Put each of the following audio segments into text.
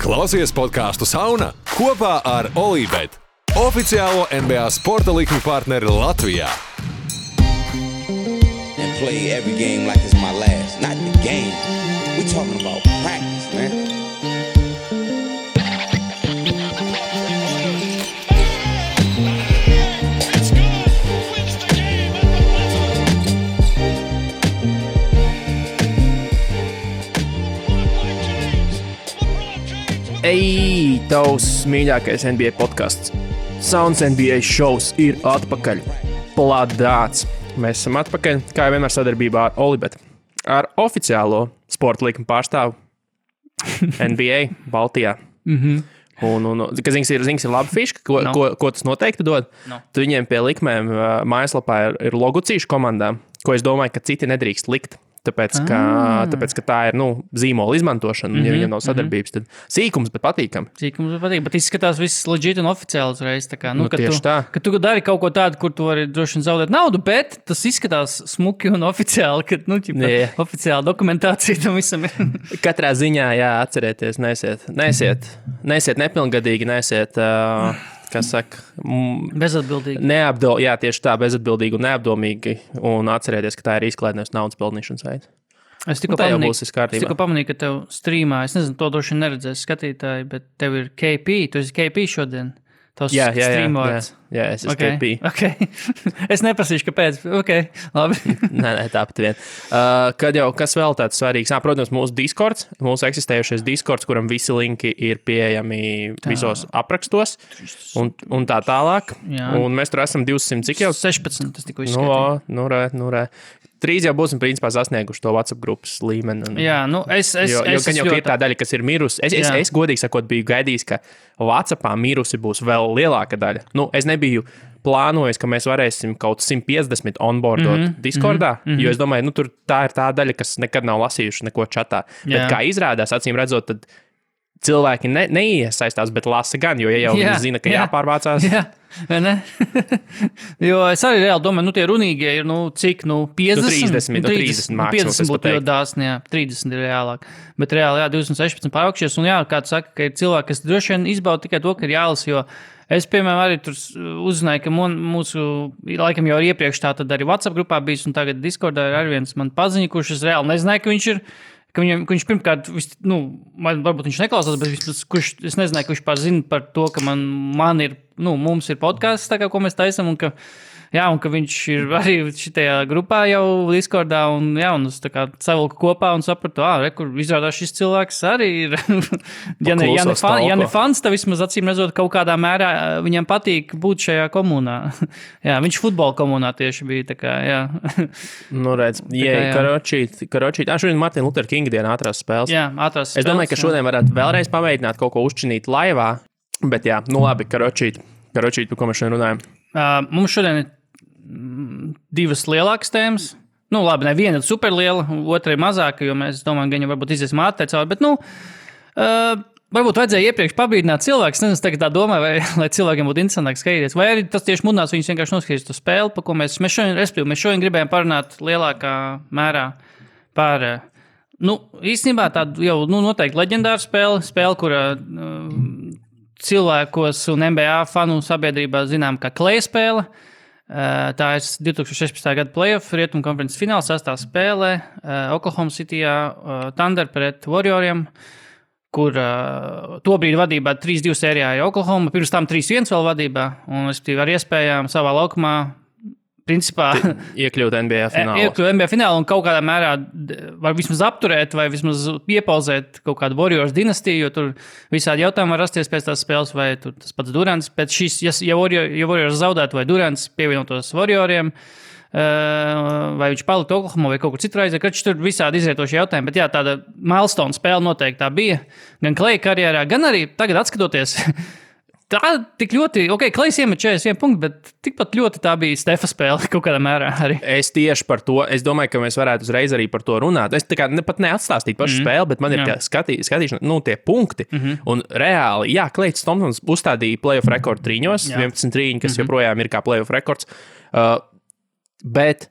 Klausies podcastu Sauna kopā ar Olībet, oficiālo NBA sporta likmi partneri Latvijā. And play every game like it's my last. Not the game. We talking about practice, man. Ej, tavs mīļākais NBA podcasts. Sounds NBA šovs ir atpakaļ. Plādāts. Mēs esam atpakaļ, kā jau vienmēr sadarbībā ar Olībet. Ar oficiālo sporta likuma pārstāvu NBA Baltijā. Kas ir laba fiška, ko tas noteikti dod. Tu viņiem pie likmēm mājaslapā ir logucīšu komandām, ko es domāju, ka citi nedrīkst likt. Tāpēc, ka tā ir zīmola izmantošana, ja viņam nav sadarbības, tad sīkums, bet patīkam. Bet izskatās viss legit un oficiāli uzreiz. Ka tu dari kaut ko tādu, kur tu vari droši vien zaudēt naudu, bet tas izskatās smuki un oficiāli, ka oficiāla dokumentācija tam visam ir. Katrā ziņā, jā, atcerieties, nesiet nepilngadīgi, nesiet... Kas saka, bezatbildīgi. Jā, tieši tā, bezatbildīgi un neapdomīgi. Un atcerieties, ka tā ir izklaidēs naudas pelnīšanas veids. Es tikko pamanīju, ka tev streamā, es nezinu, to droši neredzēs skatītāji, bet tev ir KP, tu esi KP šodien. Jā, es esmu KP. Okay. Es neprasīšu, kāpēc. Okay, labi. Nē, tāpat vien. Kad jau kas vēl tāds svarīgs? Protams, mūsu Discords, mūsu eksistējušais Discords, kuram visi linki ir pieejami visos aprakstos un tā tālāk. Jā. Un mēs tur esam 200, cik jau? 16, tas tikko izskatīja. Nu re. Trīs jau būsim principā sasnieguši to WhatsApp grupas līmeni. Jā, jo ir tā daļa, kas ir mirusi. Es godīgi sakot, biju gaidījis, ka WhatsAppā mirusi būs vēl lielāka daļa. Es nebiju plānojis, ka mēs varēsim kaut 150 onboardot Discordā, jo es domāju, tur tā ir tā daļa, kas nekad nav lasījuši neko čatā. Bet kā izrādās, acīm redzot, tad cilvēki neiesaistās, bet lasa gan, jo jau viņi zina, ka jāpārvācās. Jā. Ne? Jo es arī reāli domāju, tie runīgie ir, cik, 50? 30 mākslinieks. 50 būtu ļoti dāsni, 30 ir reālāk. Bet reāli, 216 pāraukšies, un kā tu saka, ka ir cilvēki, kas droši vien izbauda tikai to, ka ir jālas, jo es, piemēram, arī tur uzzināju, ka mūsu, laikam jau iepriekš tā tad arī WhatsApp grupā bijis, un tagad Discordā ir arī viens man paziņa, kurš es reāli nezināju, ka viņš ir, ka viņš pirmkārt, varbūt viņš neklausās, bet es nezināju, ka viņš zina par to, ka man ir, mums ir podcasts, tā kā, ko mēs taisam, un ka viņš ir arī šitajā grupā jau Discordā, un es tā kā savilku kopā un sapratu, kur izrādās šis cilvēks arī ir, ja ne fans, tad vismaz acīm redzot kaut kādā mērā viņam patīk būt šajā komunā. Jā, viņš futbola komunā tieši bija, tā kā, jā. Redz, karočīt. Šodien Martin Luther King diena ātrās spēles. Jā, ātrās spēles. Es domāju, ka šodien varētu vēlreiz pamēģināt kaut ko uzčinīt laivā, bet jā, labi, karočīt, par ko mēs šodien runājam. Mums šodien ir divas lielākas tēmas. Labi, viena ir superliela, otra ir mazāka, jo mēs domājam, ka viņa varbūt iziesim ātri cauri, bet, varbūt vajadzēja iepriekš pabīdināt cilvēkus. Nezinu, tagad tā domāju, lai cilvēkiem būtu interesantāk skatīties. Vai arī tas tieši mudinās viņus vienkārši noskatīties to spēli, par ko mēs šodien gribējām parunāt lielākā mērā par, īstenībā tādu jau, noteikti leģendāru spēli, kura cilvēkos un NBA fanu sabiedrībā zinām kā Kleja spēle. Tā ir 2016. gada playoff rietumu konferences fināla 6. spēlē Oklahoma Cityjā Thunder pret Warrioriem, kur tobrīd vadībā 3-2 sērijā ir Oklahoma, pirms tam 3-1 vēl vadībā, un es ar iespējām savā laukumā principā iekļūt NBA finālā un kaut kādā mērā var vismaz apturēt vai vismaz iepauzēt kaut kādu Warriors dinastiju, jo tur visādi jautājumi var rasties pēc tās spēles, vai tur tas pats Durants pēc šīs, ja Warriors zaudētu vai Durants pievienotos Warrioriem, vai viņš paliktu Oklahoma vai kaut kur citur aiziet, kad tur visādi izrietoši jautājumi, bet jā, tāda milestone spēle noteikti tā bija, gan Kleja karjerā, gan arī tagad atskatoties. Tā tik ļoti, Klejs iemet 41 punktu, bet tikpat ļoti tā bija Stefa spēle kaut kādā mērā arī. Es tieši par to, es domāju, ka mēs varētu uzreiz arī par to runāt. Es tā kā pat neatstāstītu pašu spēli, bet man ir skatīšana, tie punkti. Un reāli, Klejs Thompsons uzstādīja playoff rekordu trīņos, 11 trīņi, kas joprojām ir kā playoff rekords. Bet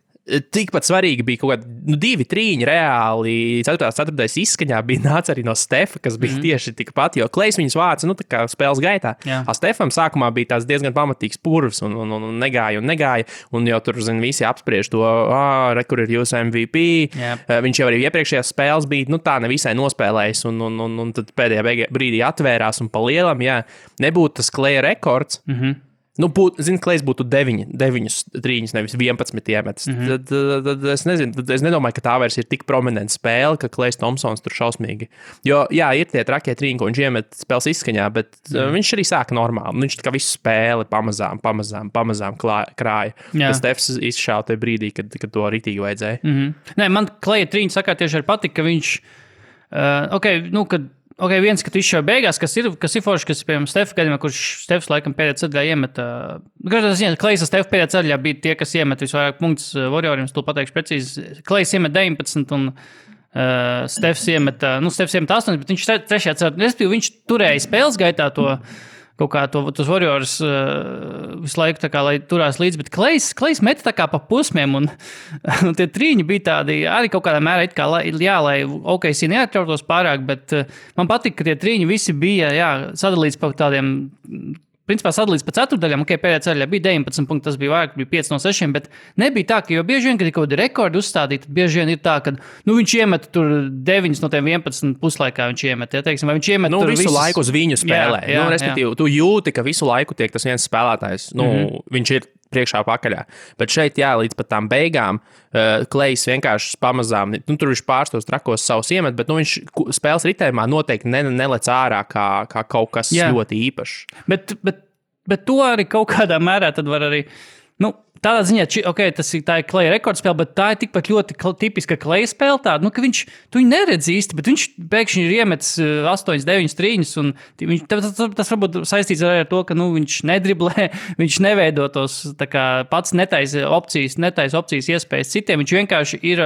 tikpat svarīgi bija kaut kādi 2 trīņi reāli. 4. izskaņā bija nāca arī no Stefa, kas bija tieši tikpat, jo Klejs viņus vāca, nu, tā kā spēles gaitā. Stefam sākumā bija tās diezgan pamatīgs purvs un negāja, un jau tur, visi apspriež to, kur ir jūsu MVP. Viņš jau arī iepriekšējās spēles bija, nu, tā nevisai nospēlējis, un tad pēdējā brīdī atvērās un pa lielam, nebūtu tas Kleja rekords. Nu, Klejs būtu 9 trīņus, nevis 11 iemetis. Tad es nezinu, es nedomāju, ka tā vairs ir tik prominenta spēle, ka Klejs Thompsons tur šausmīgi. Jo, ir tie trakie trīņi, ko viņš iemet spēles izskaņā, bet viņš arī sāka normāli. Viņš tā kā visu spēli pamazām krāja. Tas Stefs izšāva tajā brīdī, kad to ritīgi vajadzēja. Nē, man Kleja trīņi sakā tieši arī patika, ka viņš, viens, ka tu izšauj beigās, kas ir forši, kas, piemēram, Stefa gadījumā, kurš Stefs laikam pēdējā ceļā iemeta. Klejs un Stefa pēdējā ceļā bija tie, kas iemeta visvairāk punktus Warrioriem, tu pateikšu precīzi. Klejs iemeta 19 un Stefs iemeta 8, bet viņš trešajā ceļā, respektīvi, viņš turēja spēles gaitā to kaut kā tos Warriors visu laiku tā kā, lai turās līdzi, bet Klejs meta tā kā pa posmiem, un tie trīņi bija tādi, arī kaut kādā mērā it kā, lai OKC neatrautos pārāk, bet man patika, ka tie trīņi visi bija, sadalīts pa tādiem, principā sadalīts pa ceturdaļām, pēdējā ceļā bija 19 punkti, tas bija vairāk, bija 5 no 6, bet nebija tā, ka jo bieži vien, kad ir kaut kādi rekordi uzstādīti, tad bieži vien ir tā, ka, viņš iemet tur 9 no tiem 11 puslaikā viņš iemet, teiksim, vai viņš iemet tur visu laiku uz viņu spēlē. Respektīvi, tu jūti, ka visu laiku tiek tas viens spēlētājs, viņš ir priekšā pakaļā. Bet šeit, līdz pat tām beigām, Klejs vienkārši pamazām, tur viņš pārstos trakos savus iemet, bet viņš spēles ritējumā noteikti nelec ārā kā kaut kas ļoti īpašs. Bet to arī kaut kādā mērā tad var arī, tādā ziņā, tā ir Kleja rekordspēle, bet tā ir tikpat ļoti tipiska Kleja spēle tāda, ka tu viņu neredz īsti, bet viņš pēkšņi ir iemetis 8, 9 trīņus, un tas varbūt saistīts ar to, ka viņš nedriblē, viņš neveido tos pats netaisa opcijas iespējas citiem, viņš vienkārši ir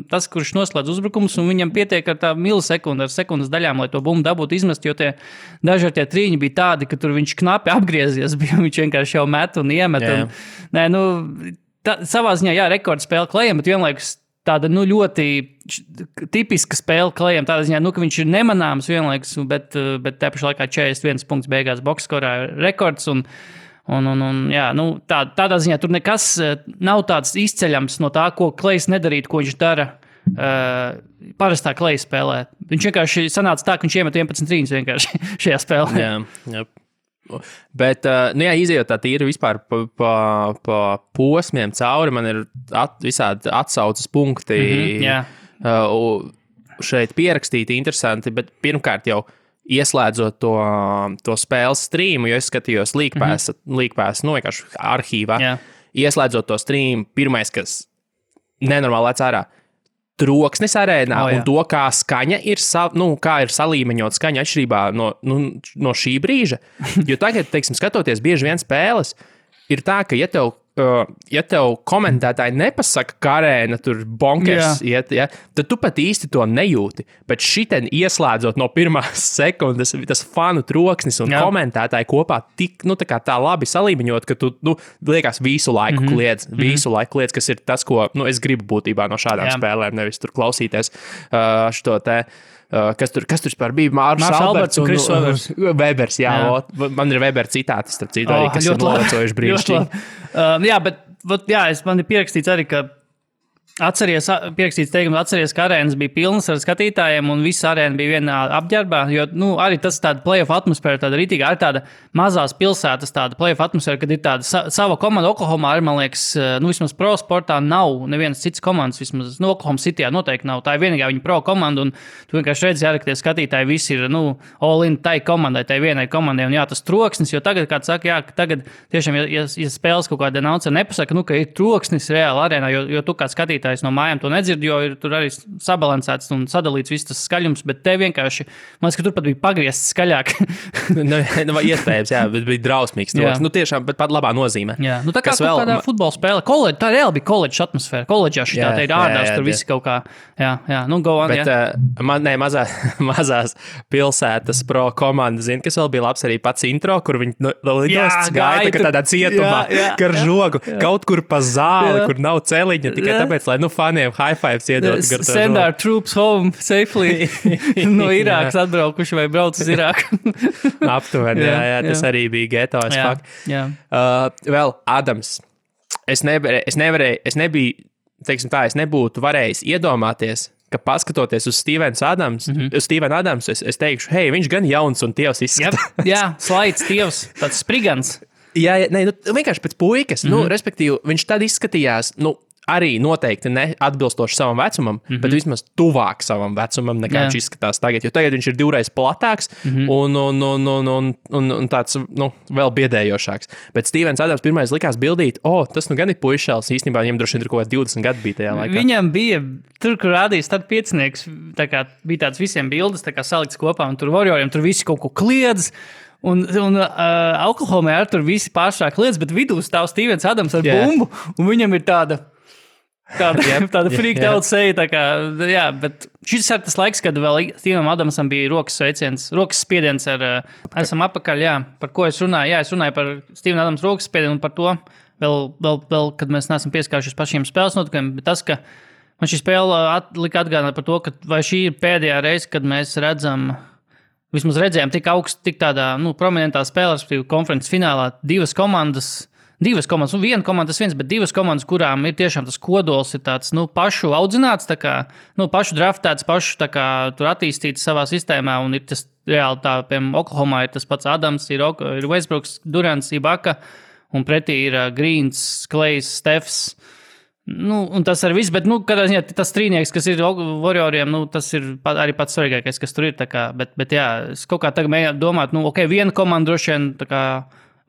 tas, kurš noslēdz uzbrukumus, un viņam pietiek ar tā milisekundu, ar sekundas daļām, lai to bumbu dabūtu izmest, jo daži ar tie trīņi bija tādi, ka tur viņš knapi apgriezies, viņš vienkārši jau met un iemet. Savā ziņā, rekordspēle Klejam, bet vienlaikus tāda, ļoti tipiska spēle Klejam, tādā ziņā, ka viņš ir nemanāms vienlaikus, bet tā pašā laikā 41 punkts beigās boxskorā rekords, tādā ziņā tur nekas nav tāds izceļams no tā, ko Klejs nedarītu, ko viņš dara parastā Kleja spēlē. Viņš vienkārši sanāca tā, ka viņš iemet 11 trīņus vienkārši šajā spēlē. Jā. Bet, izejot tā tīri vispār pa posmiem cauri, man ir visādi atsaucas punkti šeit pierakstīti interesanti, bet pirmkārt jau ieslēdzot to spēles streamu, jo es skatījos League Pass, vienkārši arhīvā, ieslēdzot to streamu, pirmais, kas nenormāli lec ārā, troksnis arēnā un to, kā skaņa ir, kā ir salīmeņot skaņa atšķirībā no šī brīža. Jo tagad, skatoties bieži vien spēles, ir tā, ka ja tev komentētāji nepasaka, ka arēna tur bonkers iet, tad tu pat īsti to nejūti. Bet šitien ieslēdzot no pirmās sekundes, tas fanu troksnis un komentētāji kopā tik, tā labi salīmeņot, ka tu, liekas visu laiku kliedz, kas ir tas, ko, es gribu būtībā no šādām spēlēm, nevis tur klausīties šo te. Kas tur vispār bija? Mārs Alberts un Kris Webers. Man ir Weber citāti, starp citu, arī, kas ir novecojuši brīnišķīgi. Man ir pierakstīts arī, ka atceries ka arēnas bija pilnas ar skatītājiem un visa arēna bija vienā apģērbā, jo, arī tas tāda playoff atmosfēra, tāda ritīga, arī tāda mazās pilsētas tāda playoff atmosfēra, kad ir tāda sava komanda Oklahomā, arī, man liekas, vismaz pro sportā nav nevienas cits komandas, vismaz Oklahoma Cityjā noteikti nav, tā ir vienīgā viņa pro komanda, un tu vienkārši redzi, ka tie skatītāji visi ir, all in tai komandai, tai vienai komandai, un tas troksnis, jo tagad, kā tu saki, ka tagad tiešām, ja spēles kaut kāda announcer nepasaka, ka ir troksnis reāli arēnā, jo tu kā skatītājs skatītājs no mājām to nedzird, jo ir tur arī sabalansēts un sadalīts viss tas skaļums, bet te vienkārši, man liekas, ka tur pat bija pagriezts skaļāk. Iespējams, jā, bet bija drausmīgs. Nu, tiešām, bet pat labā nozīmē. Jā, nu tā kā kādā futbola spēle. Tā reāli bija koledža atmosfēra. Koledžā šitā te ir ārās, tur viss kaut kā, jā, nu go on, mazās pilsētas pro komanda, kas vēl bija labs arī pats intro, kur viņi lidosts gaita, ka tādā cietumā, gar žogu, kaut kur pa zāli, kur nav celiņa, tikai tāpēc, lai, faniem high fives iedot. Send our troops home safely no Irākas atbraukuši vai brauc uz Irāku. Aptuveni, jā, tas arī bija geto as fuck. Vēl Adams. Es nebūtu varējis iedomāties, ka paskatoties uz Stevenu Adamsu, es teikšu, hei, viņš gan jauns un tievs izskatās. Jā, slaids tievs, tāds sprigans. Jā, vienkārši pēc puikas, respektīvi, viņš tad izskatījās, arī noteikti neatbilstoši savam vecumam, bet vismaz tuvāk savam vecumam, nekā viņš izskatās tagad, jo tagad viņš ir divreiz platāks un tāds, vēl biedējošāks. Bet Stevens Adams pirmais likās bildīt, tas gan ir puišēls, īstenībā viņam droši vien ir kaut kā 20 gadi bija tajā laikā. Viņam bija, tur, kur rādījis tad piecinieks, tā kā bija tāds visiem bildes, tā kā salikts kopā, un tur Warrioriem tur visi kaut ko kliedz, un Oklahomā ar tur visi pāršāk lietas, bet vidū stāv Stevens Adams ar bumbu, un viņam ir tāda freaked out seja, tā kā, jā, bet šis ir tas laiks, kad vēl Stevenam Adamsam bija rokas spiediens esam apakaļ, jā, par ko es runāju, es runāju par Steven Adams rokas spiedienu un par to, vēl, kad mēs neesam pieskāršies pašiem spēles notikumiem, bet tas, ka man šī spēle lika atgādināt par to, ka vai šī ir pēdējā reize, kad mēs vismaz redzējām tik augstu, tik tādā, prominentā spēlē, respektīvi konferences finālā, divas komandas, viena komanda tas viens, bet divas komandas, kurām ir tiešām tas kodols, ir tāds, pašu audzināts, tā kā, pašu draftēts, pašu tā kā tur attīstīts savā sistēmā, un ir tas reāli tā, piemēram, Oklahomā ir tas pats Adams, ir Westbrooks, Durants, Ibaka, un pretī ir Greens, Klejs, Stefs. Un tas arī viss, bet, kādā ziņā tas trīnieks, kas ir Warrioriem, tas ir arī pats svarīgākais, kas tur ir, tā kā, bet jā, es kaut kā tagad mēģinātu domāt, viena komanda droši vien, tā kā,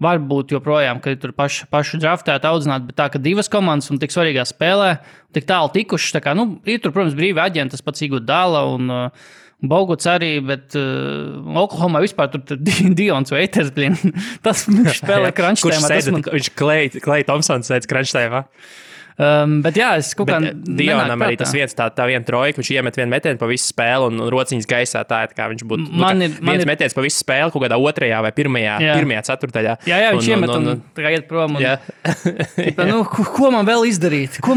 var būt joprojām, ka ir tur pašu draftēti audzināt, bet tā, ka divas komandas un tik svarīgā spēlē, tik tālu tikušas, tā kā, ir tur, protams, brīvi aģenti, tas pats Iguodala un Boguts arī, bet Oklahomā vispār tur Dions Waiters, tas spēlē crunchtēmā. Viņš Klay Thompsons sēdz crunchtēmā. Bet jā, es kaut kā Dionam arī tas viens tā viena trojka, viņš iemet vienu metienu pa visu spēli un rociņas gaisā tā, kā viņš būtu viens metiens pa visu spēli kaut kādā otrajā vai pirmajā ceturtajā. Jā, viņš iemet un tā kā iet prom. Ko man vēl izdarīt? Ko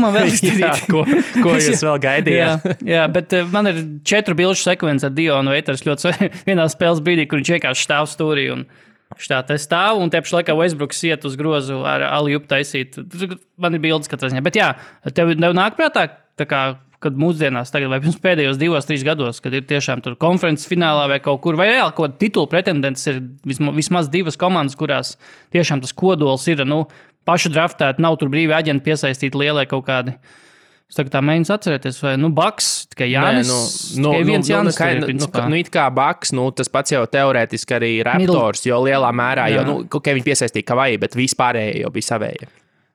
jūs vēl gaidījāt? Jā, bet man ir 4 bilžu sekvences ar Dionu Waiters ļoti vienā spēles brīdī, kur viņš vienkārši stāv stūrī un šitā te stāv, un tieši laikā Westbrooks iet uz grozu ar alley-oop taisīt. Man ir bildes katrā ziņā. Bet jā, tev nāk prātā, tā kā, kad mūsdienās tagad vai pirms pēdējos 2-3 gados, kad ir tiešām tur konferences finālā vai kaut kur, vai reāli kaut kāda titula pretendents ir vismaz divas komandas, kurās tiešām tas kodols ir, pašu draftēt, nav tur brīvi aģenti piesaistīti lielai kaut kādi. Es tagad tā mēģinu atcerēties, vai, Baks, tikai Jānis, tikai viens Jānis. It kā Baks, tas pats jau teorētiski arī Raptors, jo lielā mērā, viņi piesaistīja Kavai, bet vispārējie jau bija savējie.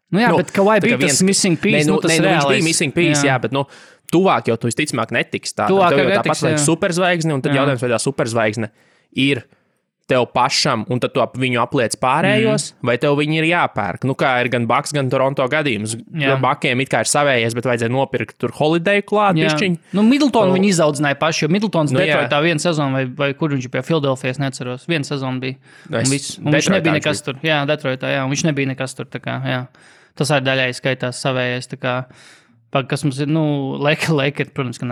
Bet Kavai bija tas missing piece, tas reālais. Viņš bija missing piece, jā, bet, tuvāk jau tu visticamāk netiks. Tuvāk jau tāpat vajag superzvaigzni, un tad jautājums, vai tā superzvaigzne ir tev pašam, un tad tu viņu apliec pārējos, vai tev viņi ir jāpērk. Kā ir gan Baks, gan Toronto gadījums. Bakiem it kā ir savējies, bet vajadzēja nopirkt tur Holiday klāt, bišķiņ. Middletonu viņi izaudzināja paši, jo Middletons Detroitā viena sezona, vai kur viņš bija Philadelphia, es neceros. Viena sezona bija. Un viņš nebija nekas tur. Jā, Detroitā, jā, un viņš nebija nekas tur, tā kā, jā. Tas arī daļai skaitās savējais, tā kā, kas mums ir, Lakers, protams, ka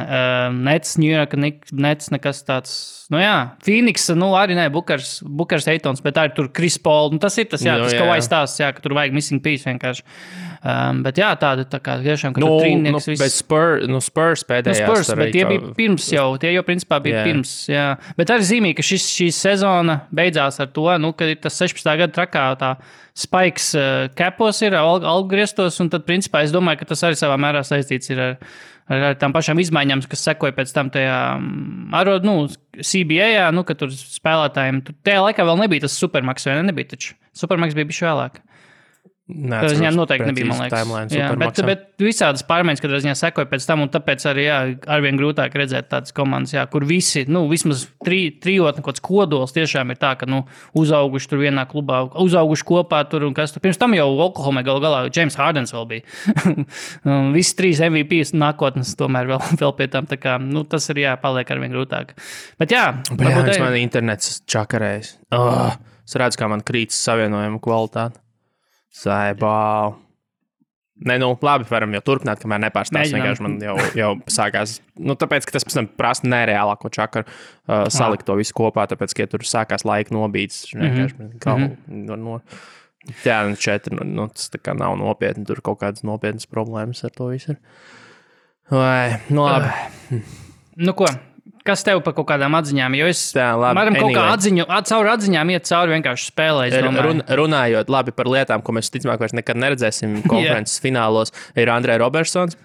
Nets, New York, Nets, nekas tāds, Phoenix, arī ne, Bukers, Eitons, bet tā ir tur Chris Paul, tas ir tas, tas kaut aizstāsts, ka tur vajag missing piece vienkārši. Bet jā, tāda, tā kā, tiešām, ka tur trīnieks viss. Bet Spurs pēdējās. Bet tie bija pirms jau, tie jau principā bija pirms, jā. Bet arī zīmīgi, ka šī sezona beidzās ar to, ka ir tas 16. gada trakā tā spikes capos ir, algriestos, un tad principā es domāju, ka tas arī savā mērā saistīts ir ar tām pašām izmaiņām, kas sekoja pēc tam tajā CBA, ka tur spēlētājiem, tajā laikā vēl nebija tas Supermax, vai nebija taču? Supermax bija bišķi vēlāk. Neatceros Viņam noteikti nebija, man timelines, liekas. Bet visādas pārmaiņas, kad viņā sekoja pēc tam, un tāpēc arī arvien grūtāk redzēt tādas komandas, kur visi, vismaz trijotni kaut kāds kodols tiešām ir tā, ka, uzauguši tur vienā klubā, uzauguši kopā tur un kas tur. Pirms tam jau Oklahomai galā James Hardens vēl bija. Visi 3 MVP nākotnes tomēr vēl pie tam, tā kā, tas ir paliek arvien grūtāk. Bet varbūt man internets čakarējis. Es redzu, kā man krītas savienojuma kvalitāte. Saibā. Nē, labi, varam jau turpināt, kamēr nepārstāst. Vienkārši man jau sākās. Tāpēc, ka tas pēc tam prasa nereālāko čakaru salikt to visu kopā, tāpēc, ka tur sākās laika nobīdes. Jā, 4, tas tā kā nav nopietni. Tur kaut kādas nopietnas problēmas ar to visu ir. Vai, labi. Ko? Kas tev par kaut kādām atziņām? Jo es varam kaut kā caur atziņām iet cauri vienkārši spēlē. Runājot labi par lietām, ko mēs ticamāk vairs nekad neredzēsim konferences finālos, ir Andrej Robertsons.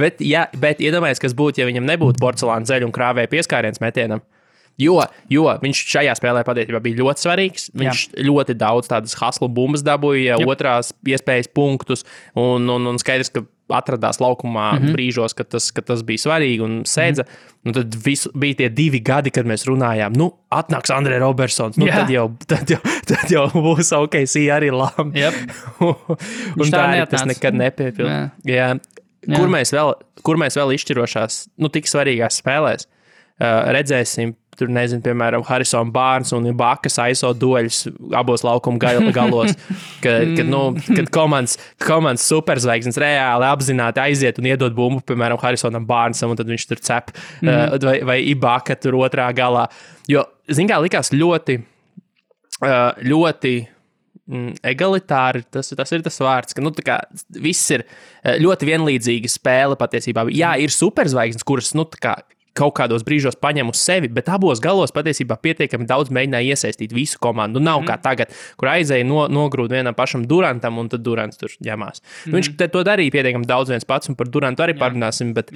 Bet iedomājies, kas būtu, ja viņam nebūtu porcelāna zeļu un krāvēja pieskāriens metienam. Jo viņš šajā spēlē patiesībā bija ļoti svarīgs. Viņš ļoti daudz tādas hustle bumbas dabūja, otrās iespējas punktus un skaidrs, ka atradās laukumā brīžos, kad tas bija svarīgi un sēdza. Tad bija tie 2 gadi, kad mēs runājām, atnāks Andrej Robertsons, tad jau būs OKC arī labi. Un tā arī tas nekad nepiepilda. Kur mēs vēl izšķirošās, tik svarīgās spēlēs redzēsim, tur nezinu, piemēram, Harrison Barnes un Ibakas aiso dueļus abos laukuma galos, kad komandas superzvaigznes reāli apzināti aiziet un iedod bumbu, piemēram, Harrisonam Barnesam, un tad viņš tur cep, vai Ibaka tur otrā galā. Jo, kā likās ļoti egalitāri, tas ir tas vārds, ka tā kā viss ir ļoti vienlīdzīga spēle patiesībā. Jā, ir superzvaigznes, kuras, tā kā kaut kādos brīžos paņem uz sevi, bet abos galos patiesībā pietiekami daudz mēģināja iesaistīt visu komandu. Nav kā tagad, kur aizēja nogrūt vienam pašam Durantam, un tad Durants tur ņemās. Viņš to darīja pietiekami daudz viens pats, un par Durantu arī parunāsim, bet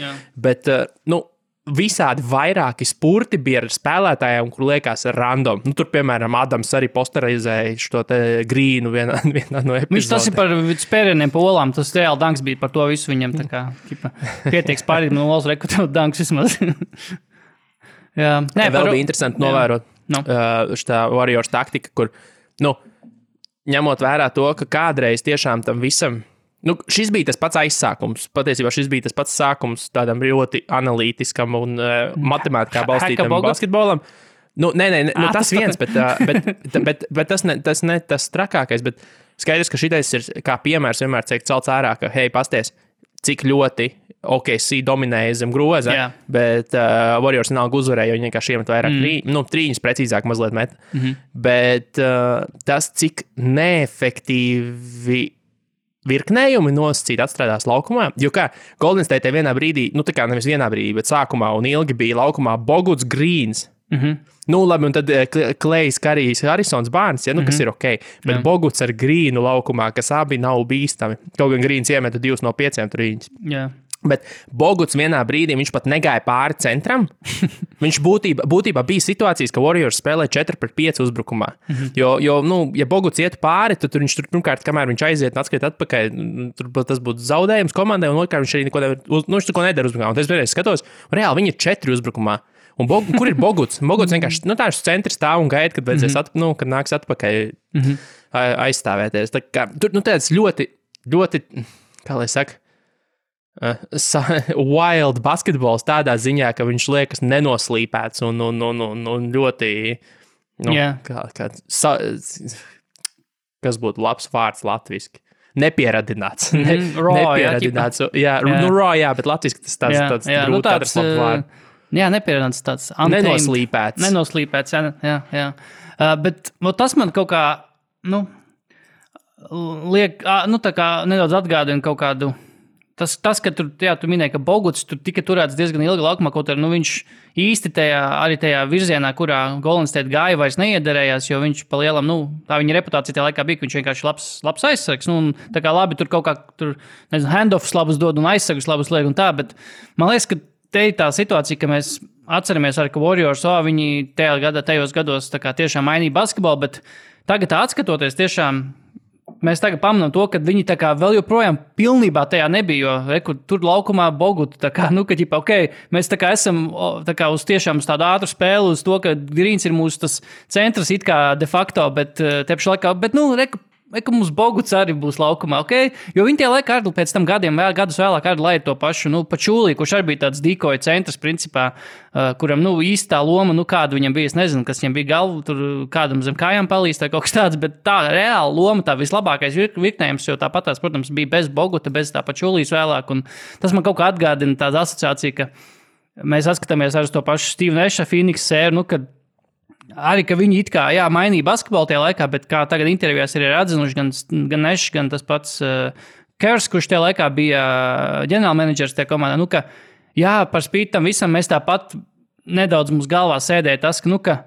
visādi vairāki spurti bija ar spēlētājiem, kur liekas random. Tur, piemēram, Adams arī posterizēja šo te Grīnu vienā no epizodēm. Viņš tas ir par spērieniem pa olām, tas reāli danks bija par to visu viņam, tā kā pietiek spārīt no olas rekrutēt danks vismaz. Vēl bija interesanti novērot šitā Warriors taktika, kur, ņemot vērā to, ka kādreiz tiešām tam visam šis bija tas pats aizsākums. Patiesībā šis bija tas pats sākums tādam ļoti analītiskam un matemātikā balstītam basketbolam. Tas viens, bet tas ne tas trakākais, bet skaidrs, ka šitais ir kā piemērs vienmēr tiek celts ārā, ka, hei, pasties, cik ļoti OKC dominēja zem groza, bet Warriors vienalga uzvarēja, jo viņi vienkārši iemet vairāk trīņus precīzāk mazliet met. Bet tas, cik neefektīvi virknējumi nosacīti atstrādās laukumā, jo kā Golden State vienā brīdī, tā kā nevis vienā brīdī, bet sākumā un ilgi bija laukumā Boguts Greens. Labi, un tad Klejs, Karijs, Harrisons Barnes, kas ir ok, bet Boguts ar Grīnu laukumā, kas abi nav bīstami. Kaut gan Grīns iemeta 2 no 5 trīņus. Bet Boguts vienā brīdī, viņš pat negāja pāri centram. Viņš būtībā bija situācijas, ka Warriors spēlē 4-5 uzbrukumā. Jo, ja Boguts iet pāri, tad viņš tur pirmkārt, kamēr viņš aiziet un atskriet atpakaļ, tas būtu zaudējums komandai, un otrkārt viņš arī viņš neko nedara uzbrukumā. Un es vienreiz skatos, reāli viņi ir 4 uzbrukumā. Un kur ir Boguts? Boguts vienkārši, tāds centrs stāv un gaida, kad vajadzēs kad nāks atpakaļ aizstāvēties. Tā kā, tur, tāds ļoti, ļoti, kā lai saka, wild basketbols tādā ziņā, ka viņš liekas nenoslīpēts un ļoti, kas būtu labs vārds latviski? Nepieradināts. Nepieradināts. Raw, bet latviski tas tāds grūti atrast labu vārdu. Jā, nepieradināts tāds nenoslīpēts. Nenoslīpēts, jā. Bet tas man kaut kā, liek, tā kā nedaudz atgādina kaut kādu. Tas, ka tu minēji, ka Boguts tur tika turēts diezgan ilgi laukumā, kaut arī viņš īsti tajā virzienā, kurā Golden State gāja, vairs neiederējās, jo viņš pa lielam, tā viņa reputācija tajā laikā bija, ka viņš vienkārši labs aizsargs. Tā kā labi, tur kaut kā, handoffs labus dod un aizsargus labus liek un tā, bet man liekas, ka te ir tā situācija, ka mēs atceramies arī, ka Warriors, viņi tajos gados tā kā tiešām mainīja basketbolu, bet tagad atskatoties tiešām, mēs tagad pamanām to, ka viņi tā kā vēl joprojām pilnībā tajā nebija, jo tur laukumā Bogutu, tā kā, ka ģipa, mēs tā kā esam tā kā uz tiešām uz tādu ātru spēli, uz to, ka Greens ir mūsu tas centrs it kā de facto, bet te pašā laikā, bet, ka mums Boguts arī būs laukumā, jo viņi tie laikā arī pēc tam gadus vēlāk arī laida to pašu, Pačūlī, kurš arī bija tāds dīkoja centrs principā, kuram, īstā loma, kāda viņam bija, es nezinu, kas viņam bija galva, tur kādam zem kājām palīst vai kaut kas tāds, bet tā reāla loma, tā vislabākais virknējums, jo tāpat tās, protams, bija bez Boguta, bez tā Pačūlīs vēlāk, un tas man kaut kā atgādina tāda asociācija, ka mēs atskatāmies arī uz to pašu Steve Nasha Phoenix sēru, kad arī, ka viņi it kā, mainīja basketbolu tajā laikā, bet kā tagad intervijās ir atzinuši gan Nash, gan tas pats Kers, kurš tajā laikā bija ģenerālmenedžers tajā komandā, ka, par spīti tam visam mēs tāpat nedaudz mums galvā sēdēja tas, ka,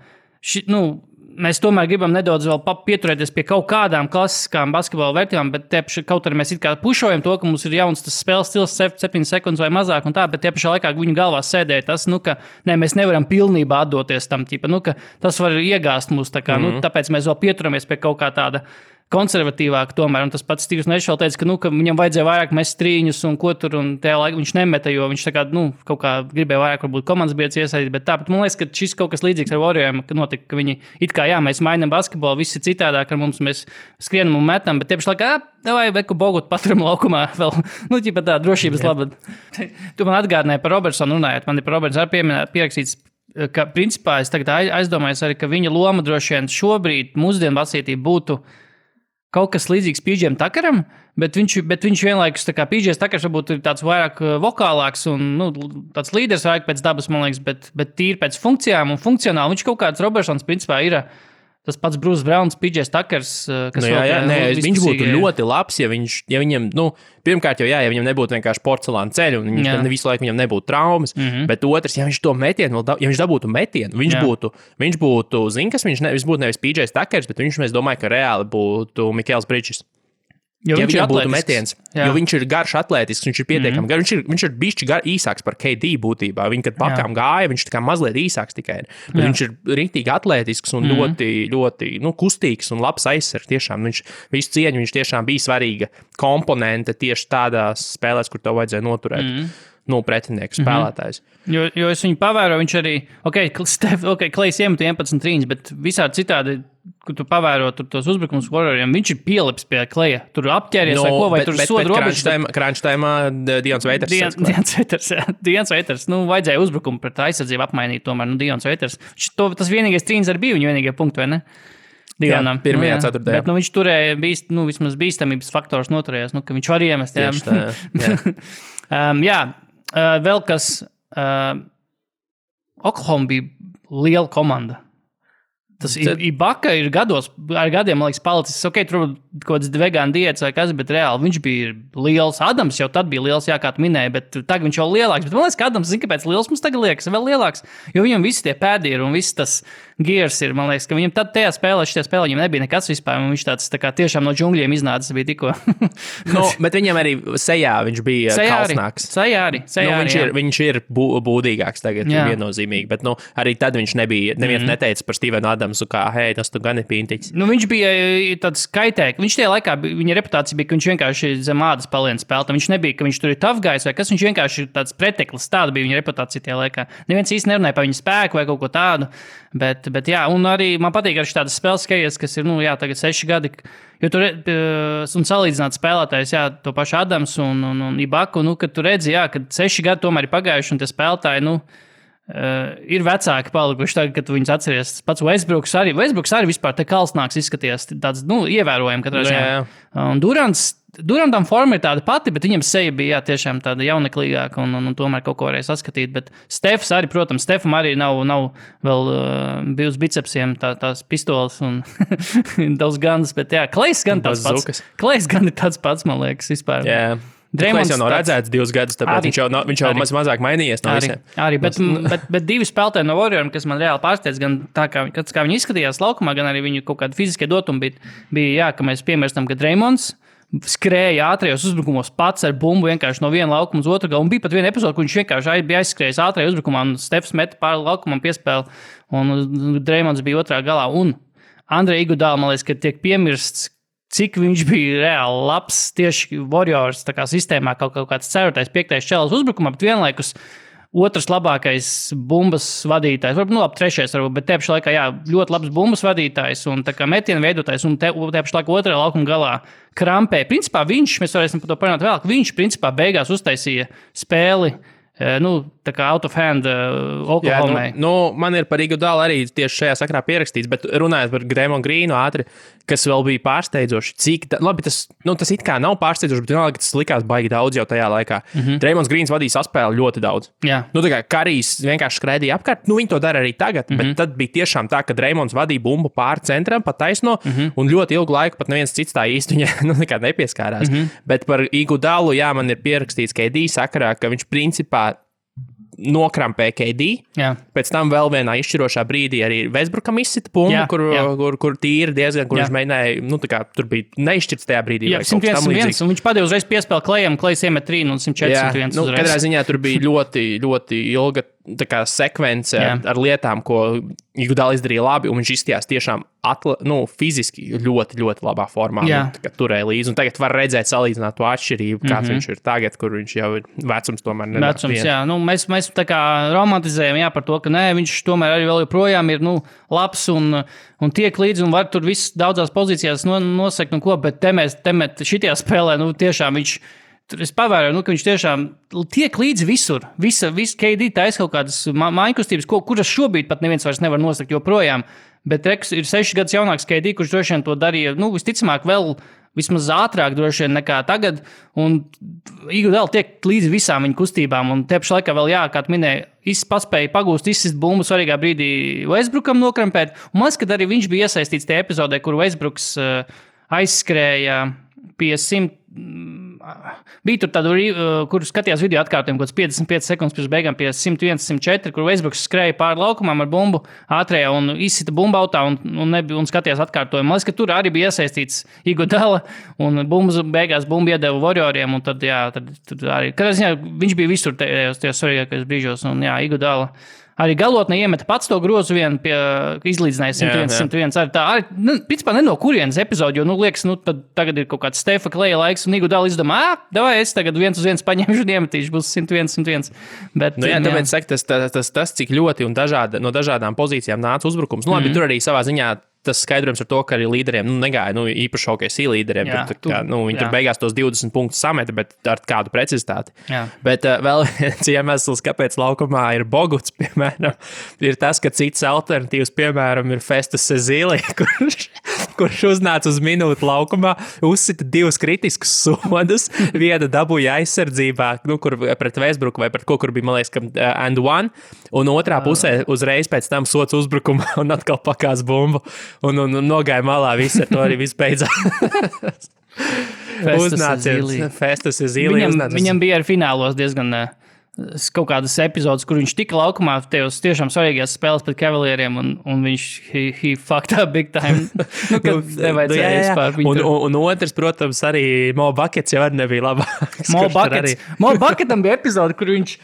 mēs tomēr gribam nedaudz vēl pieturēties pie kaut kādām klasiskām basketbola vērtībām, bet kaut arī mēs it kā pušojam to, ka mums ir jauns tas spēles stils 7 sekundes vai mazāk un tā, bet tie pašā laikā viņu galvā sēdēja tas, ka mēs nevaram pilnībā atdoties tam, ka tas var iegāst mūs, tā kā, tāpēc mēs vēl pieturamies pie kaut kā tāda konservatīvāk tomēr, un tas pats Steve's Nash vēl teica, ka viņam vajadzēja vairāk mest trīņus un ko tur, un tajā laikā viņš nemeta, jo viņš tā kā, kaut kā gribēja vairāk varbūt komandas biedrs iesaistīt, bet tāpat man liekas, ka šis kaut kas līdzīgs ar Warrioriem, ka notika, ka viņi it kā, mēs mainām basketbolu, viss ir citādāk ar mums, mēs skrienam un metam, bet tie pašā laikā, vai veku Bogutu paturam laukumā vēl, ķipa tā drošības labad. Tu man atgādināji par Robertsonu runājot, man ir par Robertsonu arī pierakstīts, ka principā es tagad aizdomājos arī, ka viņa loma droši vien šobrīd mūsdienu basītība būtu kaut kas līdzīgs PJ Tuckeram, bet viņš vienlaikus, tā kā PJ Tuckers varbūt ir tāds vairāk vokālāks un tāds līderis vairāk pēc dabas, man liekas, bet tīri pēc funkcijām un funkcionāli. Viņš kaut kāds Robertsons principā ir tas pats Bruce Browns, PJ Tuckers, kas viņš būtu ļoti labs, ja viņam, pirmkārt jau ja viņam nebūtu vienkārši porcelāna ceļu, un visu laiku viņam nebūtu traumas, bet otrs, ja viņš to metienu, ja viņš dabūtu metienu, viņš būtu, kas viņš būtu nevis PJ Tuckers, bet viņš, mēs domāju, ka reāli būtu Mikels Bridges. Ja viņam būtu metiens, jo viņš ir garš atletisks, viņš ir pietiekami garš, viņš ir bišķi īsāks par KD būtībā. Viņi, kad pakām gāja, viņš tā kā mazliet īsāks tikai ir. Bet viņš ir riktīgi atletisks un ļoti, ļoti, kustīgs un labs aizsargs. Tiešām viņš visu cieņu, viņš tiešām bija svarīga komponente tieši tādās spēlēs, kur tev vajadzēja noturēt. Pretinieku spēlētājs. Jo es viņu pavēroju, viņš arī, Klejs iemet 11 trīņas, bet visādi citādi, kur tu pavēro tos uzbrukums Warrioriem, viņš ir pielips pie Kleja. Tur apķēries vai ko, vai tur soda robežas. Crunch time Dions Waiters. Dions Waiters, vajadzēja uzbrukumu pret aizsardzību apmainīt tomēr, Dions Waiters. Tas vienīgais trīņas arī bija viņa vienīgie punkti, vai ne? Dionam. Jā, pirmajā ceturtajā. Bet viņš turēja, vismaz bīstamības faktors noturējās, ka viņš var iemest. Vēl kas, Oklahoma bija liela komanda. Tas Ibaka ir ar gadiem, man liekas, palicis. Tur kaut kāds vegāna diēts vai kas, bet reāli viņš bija liels. Adams jau tad bija liels, kā tu minēji, bet tagad viņš jau lielāks. Bet man liekas, ka Adams, kāpēc liels mums tagad liekas vēl lielāks, jo viņam visi tie pēdi ir un viss tas gears ir, man liekas, ka viņam tad tajā spēlē, viņam nebija nekas vispār, un viņš tāds tā kā tiešām no džungļiem iznācis bija tikko. Bet viņam arī sejā viņš bija kalsnāks. Sejā arī. Viņš ir būdīgāks tagad, viennozīmīgi, bet arī tad viņš nebija, neviens neteica par Stevenu Adamsu, kā, hei, tas tu gan ir pintiķis. Viņš bija tāds kaitēks. Viņš tajā laikā, viņa reputācija bija, ka viņš vienkārši zem ādas paliens spēlētājs. Viņš nebija, ka viņš tur ir tough guys vai kas, viņš vienkārši ir tāds preteklis. Tāda bija viņa reputācija tajā laikā. Neviens īsti nerunāja par viņa spēku vai kaut ko tādu. Bet jā, un arī man patīk arī tādas spēles skaties, kas ir, tagad 6 gadi, jo tur un salīdzināt spēlētājs, to pašu Adams un Ibaku, kad tu redzi, kad 6 gadi tomēr ir pagājuši, un tie spēlētāji, ir vecāki palikuši tagad, kad viņus atceries. Pats Westbrooks arī vispār te kalsnāks izskaties, tāds, ievērojami katrā ziņā. Un Durantam forma ir tāda pati, bet viņam seja bija tiešām tāda jauneklīgāka un tomēr kaut ko varēja saskatīt. Bet Stefs arī, protams, Stefam arī nav vēl bijis bicepsiem tās pistoles un daudz guns, bet Klejs gan tāds pats. Klejs gan ir tāds pats, man liekas, vispār. Yeah. Klejs jau nav redzēts 2 gadus, tāpēc viņš jau mazāk mainījies no visiem. Arī, bet 2 spēlētāji no Warrioriem, kas man reāli pārsteidz, gan tā, kā viņi izskatījās laukumā, gan arī viņu kaut kādi fiziskie dotumi bija, ka mēs piemirstam, ka Draymonds skrēja ātrajos uzbrukumos pats ar bumbu vienkārši no viena laukuma uz otru galu. Un bija pat viena epizode, kur viņš vienkārši bija aizskrējis ātrajā uzbrukumā, un Stefs meta pāri laukumam piespēli, un Dreymonds bija otrā galā. Un Andrei Iguodala, man liekas, ka tiek piemirsts, cik viņš bija reāli labs tieši Warriors tā kā sistēmā, kaut kāds 4., 5. čelis uzbrukumā, bet vienlaikus otrs labākais bumbas vadītājs, varbūt, labi, 3. varbūt, bet te pašā laikā, jā, ļoti labs bumbas vadītājs un tā kā metienu veidotājs, un te pašā laikā otrajā laukuma galā krampē. Principā mēs varēsim par to parunāt vēl, ka viņš principā beigās uztaisīja spēli, tā kā out of hand Oklahomai. Man ir par Iguodalu arī tieši šajā sakrā pierakstīts, bet runājot par Draymond Greenu ātri, kas vēl bija pārsteidzoši, labi, tas it kā nav pārsteidzoši, bet vienalga, tas likās baigi daudz jau tajā laikā. Draymonds Greens vadīja saspēli ļoti daudz. Jā. Tā kā Karijs vienkārši skraidīja apkārt, viņi to dara arī tagad, bet tad bija tiešām tā, ka Draymonds vadīja bumbu pāri centram, pa taisno, un ļoti ilgu laiku pat neviens cits tā īsti viņa nekad nepieskārās. Bet par Iguodalu, jā, man ir pierakstīts KD sakarā, ka viņš principā nokrampē KD. Jā. Pēc tam vēl vienā izšķirošā brīdī arī Westbrookam izsita bumbu, kur tīri diezgan, kur viņš mēģināja, tur bija neizšķirts tajā brīdī. Jā, 101, un viņš padeva uzreiz piespēli Klejam, Klejs iemet 3 un 104. Katrā ziņā tur bija ļoti, ļoti ilga sekvence ar lietām, ko Iguodala izdarīja labi, un viņš izstījās tiešām fiziski ļoti, ļoti labā formā. Turēja līdzi, un tagad var redzēt, salīdzināt to atšķirību, kāds viņš ir tagad, kur viņš jau ir vecums tomēr nedara. Vecums, jā. Mēs tā kā romantizējam, par to, ka viņš tomēr arī vēl joprojām ir, labs un tiek līdzi, un var tur viss daudzās pozīcijās nosekt un ko, bet šitajā spēlē, tiešām viņš. Es pavēroju, ka viņš tiešām tiek līdzi visur. Visa KD taisa kaut kādas mājkustības, kuras šobrīd pat neviens vairs nevar nosakt joprojām. Bet Reks ir 6 gadus jaunāks KD, kurš droši vien to darīja, visticamāk vēl vismaz ātrāk droši vien nekā tagad. Un Iguodala tiek līdzi visām viņa kustībām. Un te pašā laikā vēl, kā tu minēji, paspēja pagūst, izsist bumbu svarīgā brīdī Westbrookam nokrampēt. Un man liekas, ka arī viņš bija iesaistīts tajā epizodē, kur Westbrooks aizskrēja pie 100. Bija tur tādu, kur skatījās video atkārtojumu, kaut 55 sekundes pirms beigām pie 101, 104, kur Westbrooks skrēja pāri laukumam ar bumbu ātrējā un izsita bumbu autā un skatījās atkārtojumu. Man liekas, ka tur arī bija iesaistīts Iguodala un beigās bumbu iedeva Warrioriem, un tad arī, katrā ziņā viņš bija visur tajos svarīgākajos brīžos, un Iguodala arī galotnē iemeta pats to grozu vienu pie izlīdzināja 101. Arī principā ne no kurienes epizodi, jo, liekas, tad tagad ir kaut kāds Stefa Kleja laiks, un Iguodala izdomā, davai, es tagad 1-1 paņemšu un iemetīšu, būs 101. Bet, tāpēc saka, tas, cik ļoti un no dažādām pozīcijām nāca uzbrukums. Labi, tur arī savā ziņā tas skaidrojums ar to, ka arī līderiem negāja, īpaši OKC līderiem. Viņi tur beigās tos 20 punktus sameta, bet ar kādu precizitāti. Jā. Bet vēl viens iemesls, kāpēc laukumā ir Boguts, piemēram, ir tas, ka cits alternatīvs, piemēram, ir Festus Ezeli, kurš uznāca uz minūti laukumā, uzsita 2 kritiskus sodus, viena dabūja aizsardzībā, kur pret Westbrooku vai pret ko, kur bija, man liekas, and one, un otrā pusē uzreiz pēc tam sots uzbrukumā un atkal pakās bumbu. Un nogāja malā, viss ar to arī viss beidzās. Festus Ezeli. Viņam bija arī finālos diezgan kaut kādas epizodes, kur viņš tika laukumā tajos tiešām svarīgās spēles pret Cavalieriem, un viņš he fucked up big time. Kad nevajadzēja vispār viņu. Un otrs, protams, arī Mo Buckets jau arī nebija labāks. Mo Bucketam bija epizode, kur viņš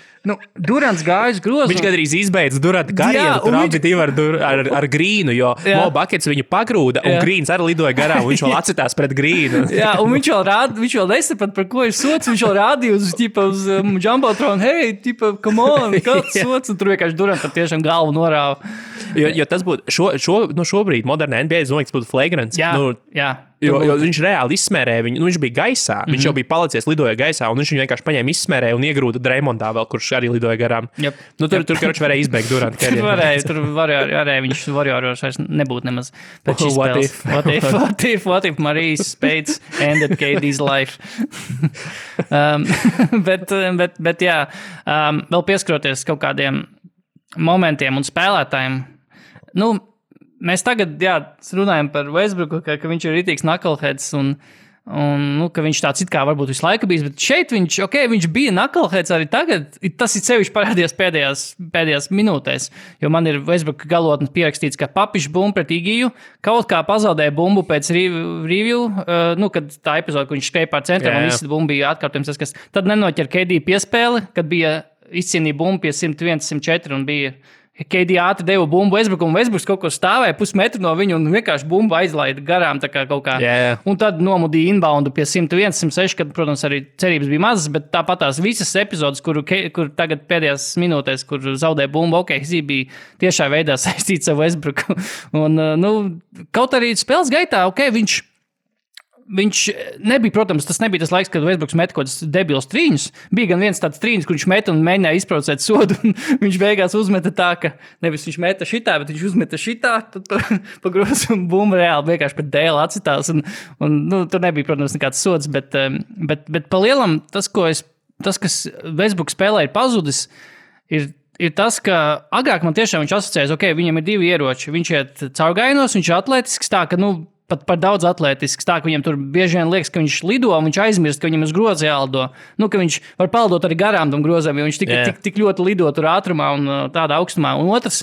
Durants gājas grozu. Viņš gandrīz izbeidz Duranta karjeru, tur abi divi ar Grīnu, jo Mo Buckets viņu pagrūda, un Grīns arī lidoja garām, un viņš vēl atcitās pret Grīnu. Jā, un viņš vēl nesaprata, par ko ir sots, viņš vēl rādīja uz Jumbotronu, hey, come on, kāds sots, un tur vienkārši Durantam tiešām galvu norāva. Jo tas būtu, šobrīd modernā NBA, es domāju, tas būtu flagrants. Jā. Jo viņš reāli izsmērēja viņu, viņš bija gaisā, viņš jau bija palicies, lidoja gaisā, un viņš viņu vienkārši paņēma izsmērēja un iegrūda Dreymondā vēl, kurš arī lidoja garām. Yep. Tur karoči varēja izbeigt Duranta karjeru. Tur varēja viņš Warriors vairs nebūtu nemaz pēc šīs spēles. What if Marijas Spades ended KD's life? bet jā, vēl pieskaroties kaut kādiem momentiem un spēlētājiem, mēs tagad runājam par Westbrooku, ka viņš ir ritīgs knuckleheads, un Un, ka viņš tāds it kā varbūt visu laiku bijis, bet šeit viņš bija knuckleheads arī tagad. Tas ir sevišķi parādījās pēdējās minūtēs, jo man ir Westbrook galotnes pierakstīts, ka papišs bumbu pret Igiju, kaut kā pazaudēja bumbu pēc review, kad tā epizode, kur viņš skrēja pār centram un visi bumbu bija atkārtojums, tad nenoķer KD piespēli, kad bija izcīnīja bumbu pie 101, 104 un bija KD ātri deva bumbu Westbrookam, un Westbrooks kaut kur stāvēja pusmetru no viņu un vienkārši bumbu aizlaida garām tā kā kaut kā. Un tad nomudīja inboundu pie 101, 106, kad, protams, arī cerības bija mazas, bet tāpat tās visas epizodes, kur tagad pēdējās minūtēs, kur zaudēja bumbu, bija tiešā veidā saistīts ar Westbrooku. Un, kaut arī spēles gaitā, Viņš nebija, protams, tas nebija tas laiks, kad Westbrooks met kaut kāds debils trīņus. Bija gan viens tāds trīņus, kur viņš meta un mēģināja izprovocēt sodu. Viņš beigās uzmeta tā, ka nevis viņš meta šitā, bet viņš uzmeta šitā, tad pa grozu un bumbu reāli vienkārši pret dēlu atcitās. Un tur nebija, protams, nekāds sods, bet pa lielam tas, kas Westbrooks spēlē ir pazudis, ir tas, ka agrāk man tiešām viņš asociējas, viņam ir divi ieroči. Viņš iet caurgainos, viņš ir atletisks tā, ka, pat par daudz atletisks, tā, ka viņam tur bieži vien liekas, ka viņš lido, un viņš aizmirst, ka viņam uz groza jālido. Ka viņš var paldot arī garām tam grozam, jo viņš tik ļoti lido tur ātrumā un tādā augstumā. Un otrs,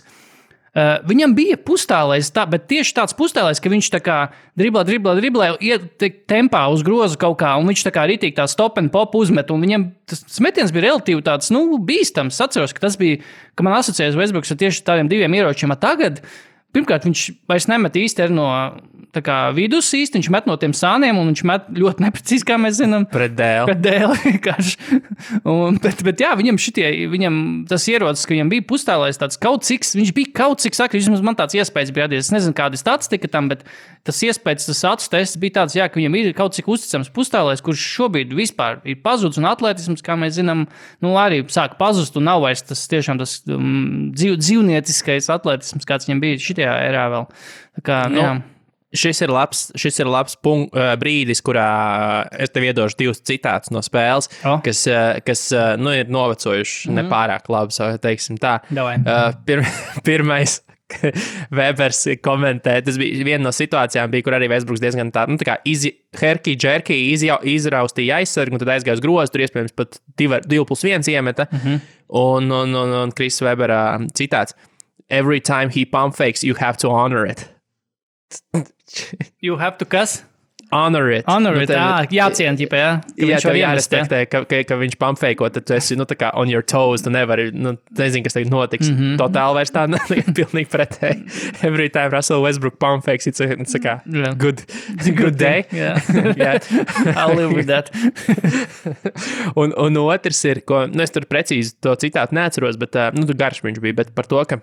viņam bija pustālais, bet tieši tāds pustālais, ka viņš tā kā driblē, iet tempā uz grozu kaut kā, un viņš tā kā ritīgi tā stop and pop uzmet, un viņam tas metiens bija relatīvi tāds, bīstams. Atceros, ka tas bija, ka man asociējas Westbrooks ar tieši tādiem diviem ieročiem. Tagad, pirmkārt, viņš vairs nemet īsti no vidus īsti, viņš met no tiem sāniem, un viņš met ļoti neprecīzi, kā mēs zinām. Pret dēli vienkārši. Bet jā, viņam tas ierocis, ka viņam bija pustālais tāds viņš bija kaut cik sakri, vismaz man tāds iespējas bija radies. Es nezinu, kāda statistika tam, bet tas iespējas, tas acu tests bija tāds, ka viņam ir kaut cik uzticams pustālais, kurš šobrīd vispār ir pazudis, un atletisms, kā mēs zinām, arī sāk pazust, un nav vairs tas tiešām tas dzīvnieciskais atletisms, kāds viņam bija šitajā erā vēl. Tā kā, jā. Šis ir labs brīdis, kurā es tev iedošu divus citātus no spēles, kas ir novecojuši nepārāk labi, teiksim tā. Pirmais, Webers komentē, tas bija viena no situācijām, kur arī Westbrooks diezgan tā kā herky-jerky izraustīja aizsargu, un tad aizgāja uz grozu, tur iespējams pat 2+1 iemeta, un Chris Webera citāts: "Every time he pump fakes, you have to honor it." You have to kas? Honor it. Jāciena, jā. Jā, tev jārespektē, ka viņš pumpfeiko, tad tu esi, tā kā on your toes, tu nevari, nezinu, kas tagad notiks. Totāli vairs tā, pilnīgi pretēji. Every time Russell Westbrook pumpfakes, it's a kā good day. Yeah. I'll live with that. un otrs ir, es tur precīzi to citātu neatceros, bet, tur garš viņš bija, bet par to, ka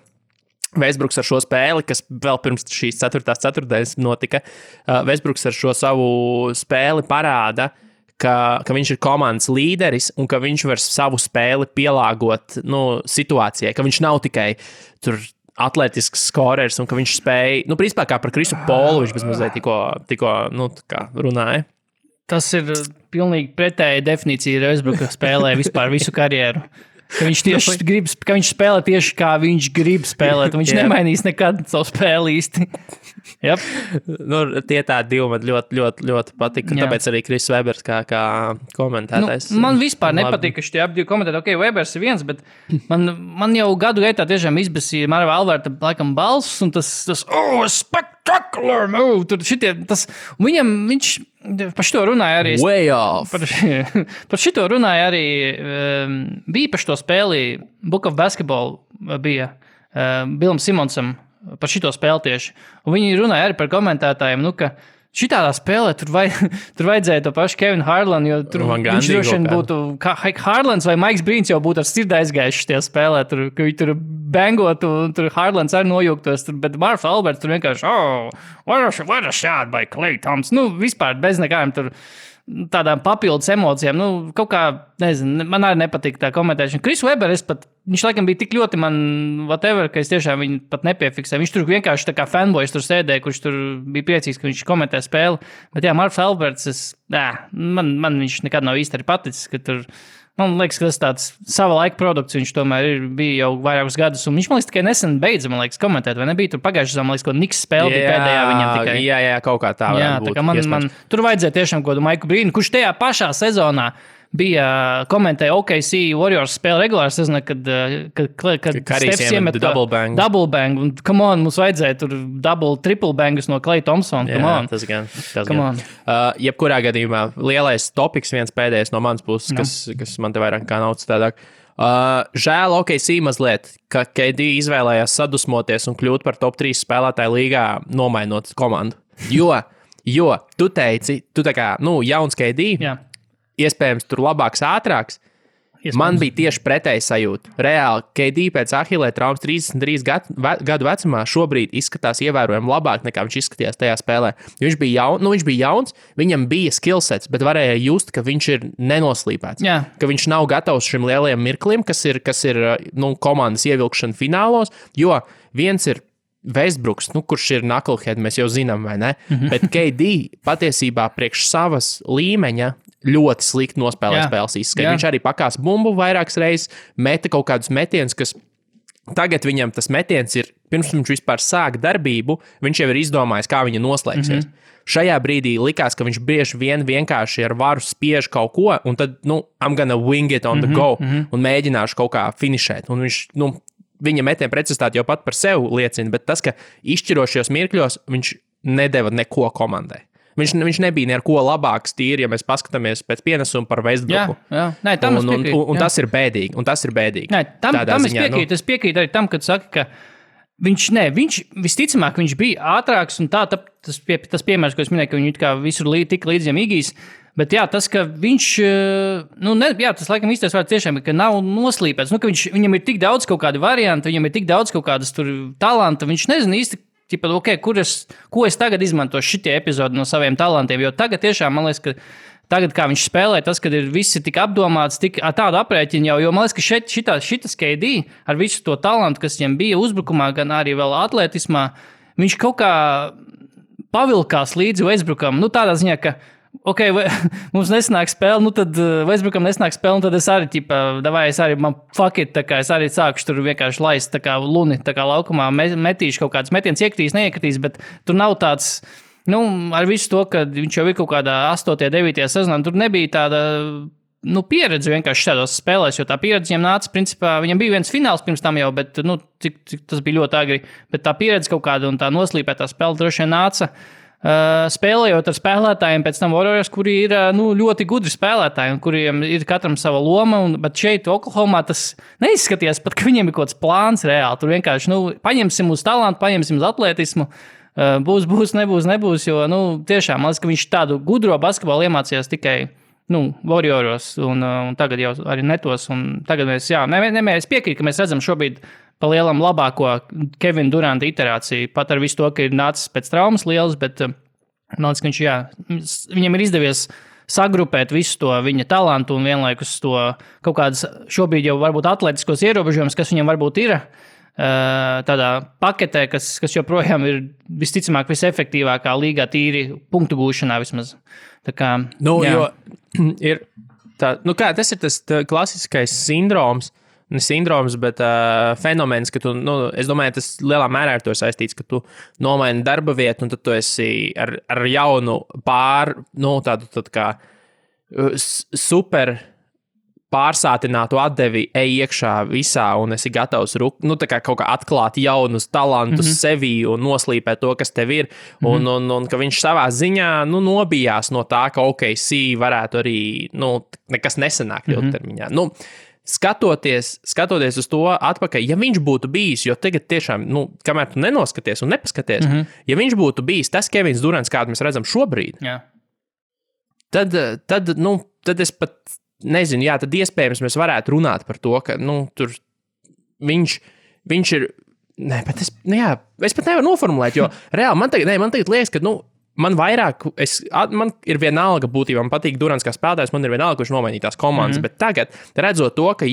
Westbrooks ar šo spēli, kas vēl pirms šīs 4. ceturtdienas notika, Westbrooks ar šo savu spēli parāda, ka viņš ir komandas līderis un ka viņš var savu spēli pielāgot situācijai, ka viņš nav tikai tur atletisks skorers un ka viņš spēja, principā kā par Krisu Polu viņš bezmazliet tikko runāja. Tas ir pilnīgi pretēja definīcija Westbrooka spēlē vispār visu karjeru. Ka viņš spēlē tieši kā viņš grib spēlēt, un viņš nemainīs nekad savu spēli īsti. Yep. Tie tādi divi man ļoti, ļoti, ļoti patika, tāpēc arī Chris Webers kā komentētājs. Man vispār nepatīk, ka šitie abi divi komentētāji, Webers ir viens, bet man jau gadu gaitā tiešām izbasīja Marva Alberta laikam balss, un tas spectacular move, tur šitie, viņš par šito runāja arī. Way off. Par šito runāja arī, bija par šito spēli, Book of Basketball bija Bilam Simonsam par šito spēli tieši. Un viņi runāja arī par komentētājiem, ka šitādā spēlē tur vajadzēja to pašu Kevinu Harlanu, jo tur viņš droši vien būtu, kā Harlans vai Maiks Brīns jau būtu ar sirdi aizgājuši šitajā spēlē, ka viņi tur bengotu, un tur Harlans arī nojūgtos, bet Marvs Alberts tur vienkārši, what a shot by Klay Thompson, vispār bez nekādiem tur tādām papildus emocijām, kaut kā, nezinu, man arī nepatīk tā komentēšana. Chris Webber, viņš laikam bija tik ļoti man, whatever, ka es tiešām viņu pat nepiefiksēju. Viņš tur vienkārši tā kā fanboys tur sēdēja, kurš tur bija priecīgs, ka viņš komentē spēli. Bet jā, Marvs Alberts, man viņš nekad nav īsti arī paticis, ka tur Man liekas, ka tas tāds sava laika produkts, viņš tomēr bija jau vairākus gadus, un viņš, man liekas, tikai nesen beidza, man liekas, komentēt, vai nebija tur pagājušajā, man liekas, ko Niks spēle bija pēdējā viņam tikai. Jā, kaut kā tā varētu būt. Tā kā man tur vajadzēja tiešām kaut kādu Maiku Brīnu, kurš tajā pašā sezonā bija komentēja OKC Warriors spēli regulāri sezonā, kad Stefs iemet double bang, un come on, mums vajadzēja tur triple bangus no Klay Thompsona, come on. Tas gan. Jebkurā gadījumā lielais topiks viens pēdējais no manas puses, kas man te vairāk kā nav citādāk. Žēl OKC mazliet, ka KD izvēlējās sadusmoties un kļūt par top 3 spēlētāju līgā, nomainot komandu. Jo tu teici, tu tā kā, jauns KD, iespējams, tur labāks, ātrāks. Man bija tieši pretēji sajūta. Reāli, KD pēc Ahilē traumas 33 gadu vecumā šobrīd izskatās ievērojami labāk nekā viņš izskatījās tajā spēlē. Viņš bija jauns, viņam bija skillsets, bet varēja just, ka viņš ir nenoslīpēts. Jā. Ka viņš nav gatavs šim lielajam mirklim, kas ir komandas ievilkšana finālos, jo viens ir Westbrooks, kurš ir knucklehead, mēs jau zinām, vai ne? Bet KD patiesībā priekš savas līmeņa ļoti slikti nospēlē spēles izskatu. Viņš arī pakās bumbu vairākas reizes, meta kaut kādus metienus, kas tagad viņam tas metiens ir, pirms viņš vispār sāk darbību, viņš jau ir izdomājis, kā viņa noslēgsies. Šajā brīdī likās, ka viņš bieži vienkārši ar varu spiež kaut ko, un tad, I'm gonna wing it on the go, un mēģināšu kaut kā finišēt. Un viņš, viņa metiena precizitāte jau pat par sevi liecina, bet tas, ka izšķirošajos mirkļos viņš nedeva neko komandai. Viņš nebija neko labāks tīri, ja mēs paskatāmies pēc pienesuma par Westbrooku. Nē, tam es piekrītu. Un tas ir bēdīgi. Nē, tam es piekrītu. Es piekrītu arī tam, kad saka, ka viņš visticamāk, viņš bija ātrāks, un tas piemērs, ko es minēju, ka viņu kā visur tika līdziem Igijs. Bet jā, tas, ka viņš, tas laikam īstais vārds tiešām ir, ka nav noslīpēts, ka viņam ir tik daudz kaut kādu variantu, viņam ir tik daudz kaut kādas tur talanta, viņš nezina īsti, ko es tagad izmantošu šitie epizodi no saviem talantiem, jo tagad tiešām, man liekas, ka tagad, kā viņš spēlē, tas, kad ir visi tik apdomāts, tik tādu aprēķinu jau, jo man liekas, ka šitas KD ar visu to talantu, kas viņam bija uzbrukumā, gan arī vēl atletismā, viņš kaut kā pavilkās līdzi Westbrookam, tādā ziņā, ka mums nesanāk spēle, tad Westbrookam nesanāk spēle, un tad es arī, man fuck it, es arī sākušu tur vienkārši laist, luni, laukumā metīšu kaut kādas metienas, neiekritīs, bet tur nav tāds, ar visu to, ka viņš jau ir kaut kādā 8. 9. sezonā, tur nebija tāda, pieredze vienkārši šādos spēlēs, jo tā pieredze viņam nāca, principā, viņam bija viens fināls pirms tam jau, bet, cik tas bija ļoti agri, bet tā pieredze kaut kāda un tā noslīpētā spēle droši vien nāca, spēlējot ar spēlētājiem pēc tam Warriors, kuri ir ļoti gudri spēlētāji un kuriem ir katram sava loma, bet šeit Oklahomā tas neizskatījās pat, ka viņiem ir kaut kāds plāns reāli. Tur vienkārši, paņemsim uz talantu, paņemsim uz atletismu, būs, nebūs, jo, tiešām, man liekas, ka viņš tādu gudro basketbolu iemācījās tikai, Warrioros un tagad jau arī netos, un tagad mēs, es piekrītu, ka mēs redzam šobrīd pa lielam labāko Kevina Duranta iterāciju, pat ar visu to, ka ir nācis pēc traumas liels, bet man liekas, ka viņam ir izdevies sagrupēt visu to viņa talantu un vienlaikus to kaut kādas šobrīd jau varbūt atletiskos ierobežojumus, kas viņam varbūt ir tādā paketē, kas joprojām ir visticamāk visefektīvākā līgā tīri punktu gūšanā vismaz. Tā kā, jo ir tā, tas ir tas klasiskais sindroms, ne sindroms, bet fenomens, ka tu, es domāju, tas lielā mērā ar to saistīts, ka tu nomaini darba vietu, un tad tu esi ar jaunu tādu kā super pārsātinātu atdevi ej iekšā visā, un esi gatavs tā kā kaut kā atklāt jaunus talantus sevī un noslīpēt to, kas tev ir, un ka viņš savā ziņā, nobijās no tā, ka OKC varētu arī, nekas nesanāk ilgtermiņā. Skatoties uz to atpakaļ, ja viņš būtu bijis, jo tagad tiešām, kamēr tu nenoskaties un nepaskaties, ja viņš būtu bijis tas Kevins Durants, kādu mēs redzam šobrīd, tad es pat nezinu, tad iespējams mēs varētu runāt par to, ka, tur viņš ir, bet es pat nevaru noformulēt, jo reāli man tagad liekas, ka, man vairāk, man ir vienalga būtībā, man patīk Durants kā spēlētājs, man ir vienalga, kurš nomainīja tās komandas, bet tagad, redzot to, ka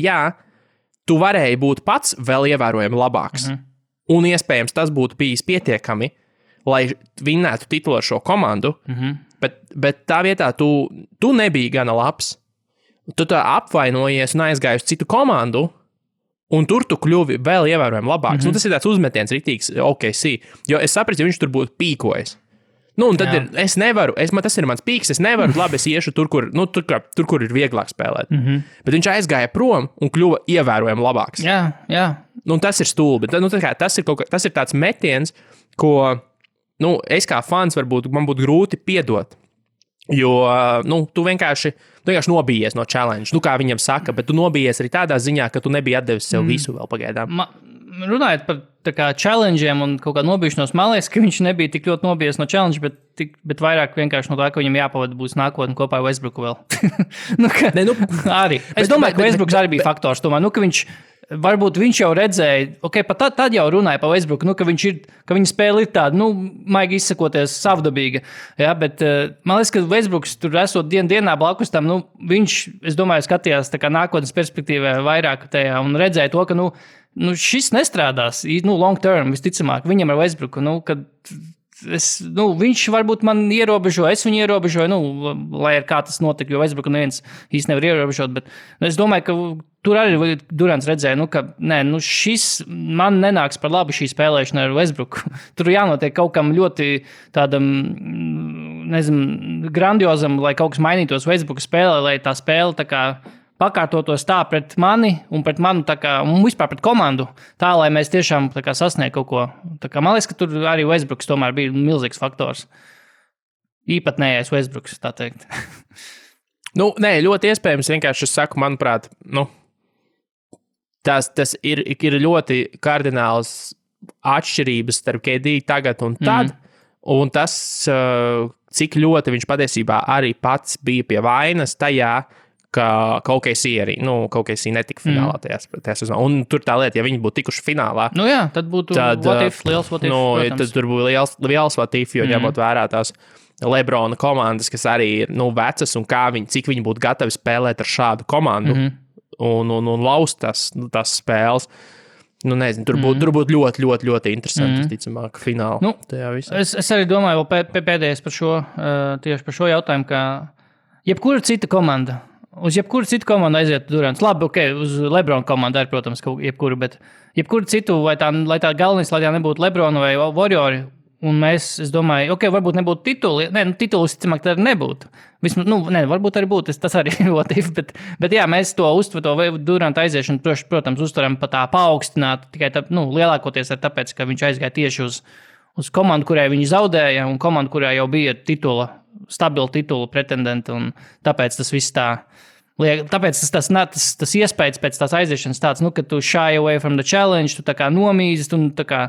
tu varēji būt pats vēl ievērojami labāks, un iespējams tas būtu bijis pietiekami, lai vinnētu titulu ar šo komandu, bet tā vietā tu nebija gana labs, tu tā apvainojies un aizgāji uz citu komandu, un tur tu kļuvi vēl ievērojami labāks. Tas ir tāds uzmetiens rītīgs, OKC, jo es sapratu, ja viņš tur būtu pīkojis. Un tad es nevaru, tas ir mans pīks, es nevaru, labi, es iešu tur, kur ir vieglāk spēlēt. Bet viņš aizgāja prom un kļuva ievērojami labāks. Jā. Un tas ir stulbi. Tas ir tāds metiens, ko es kā fans varbūt man būtu grūti piedot. Jo tu vienkārši nobijies no challenge, kā viņam saka, bet tu nobijies arī tādā ziņā, ka tu nebija atdevis sev visu vēl pagaidām. Runājot par challenge'iem un kaut kā nobijušanos, man liekas, ka viņš nebija tik ļoti nobijies no challenge, bet vairāk vienkārši no tā, ka viņam jāpavada būs nākotne kopā ar Westbrooku vēl. Arī. Es domāju, ka Westbrooks arī bija faktors. Tomēr, varbūt viņš jau redzēja, pat tad jau runāja par Westbrooku, ka viņa spēle ir tāda, maigi izsakoties, savdabīga. Ja, bet man liekas, ka Westbrooks tur esot dienā blakus tam, viņš, es domāju, skatījās tā kā nākotnes perspektīvā vairāk tajā un redzēja to, ka, šis nestrādās, long term, visticamāk, viņam ar Westbrooku, kad viņš varbūt man ierobežo, es viņu ierobežoju, lai ar kā tas notika, jo Westbrooku neviens īsti nevar ierobežot, bet es domāju, ka tur arī Durants redzēja, ka šis man nenāks par labu šī spēlēšana ar Westbrooku. Tur jānotiek kaut kam ļoti tādam, grandiozam, lai kaut kas mainītos Westbrooku spēlē, lai tā spēle tā kā pakārtotos tā pret mani un pret manu, un vispār pret komandu, tā, lai mēs tiešām sasniegtu kaut ko. Man liekas, ka tur arī Westbrooks tomēr bija milzīgs faktors. Īpatnējais Westbrooks, tā teikt. Nē, ļoti iespējams, vienkārši es saku, manuprāt, tas ir ļoti kardināls atšķirības starp KD tagad un tad, un tas, cik ļoti viņš patiesībā arī pats bija pie vainas tajā, ka kaut kas arī, kaut kas netika finālā tajā sezonā. Un tur tā lieta, ja viņi būtu tikuši finālā. Tad būtu liels what if, protams. Tad tur būtu liels what if, jo ņemot vērā tās Lebrona komandas, kas arī ir, vecas un cik viņi būtu gatavi spēlēt ar šādu komandu un laust tās spēles. Nezinu, tur būtu ļoti, ļoti, ļoti interesanti, ticamāk, fināli tajā visā. Es arī domāju, vēl pēdējais tieši par šo jautājumu, ka jebkura cita komanda, uz jebkuru citu komandu aiziet Durants. Labi, uz Lebrona komandu arī, protams, jebkuru, bet jebkuru citu, lai tā galvenais, lai tā nebūtu Lebrona vai Warriori, un es domāju, varbūt nebūtu tituli. Titulis, cimāk, tā arī nebūtu. Vismaz, varbūt arī būtu, tas arī ir motīvi, bet jā, mēs to Duranta aiziešanu, protams, uztveram pa tā paaugstināt, tikai lielākoties ar tāpēc, ka viņš aizgāja tieši uz komandu, kurai viņi zaudēja, un komandu, kurā jau bija stabila titula pretendenti, un tāpēc tas viss tā. Tāpēc tas iespējas pēc tās aiziešanas tāds, ka tu shy away from the challenge, tu tā kā nomīzis, un tā kā,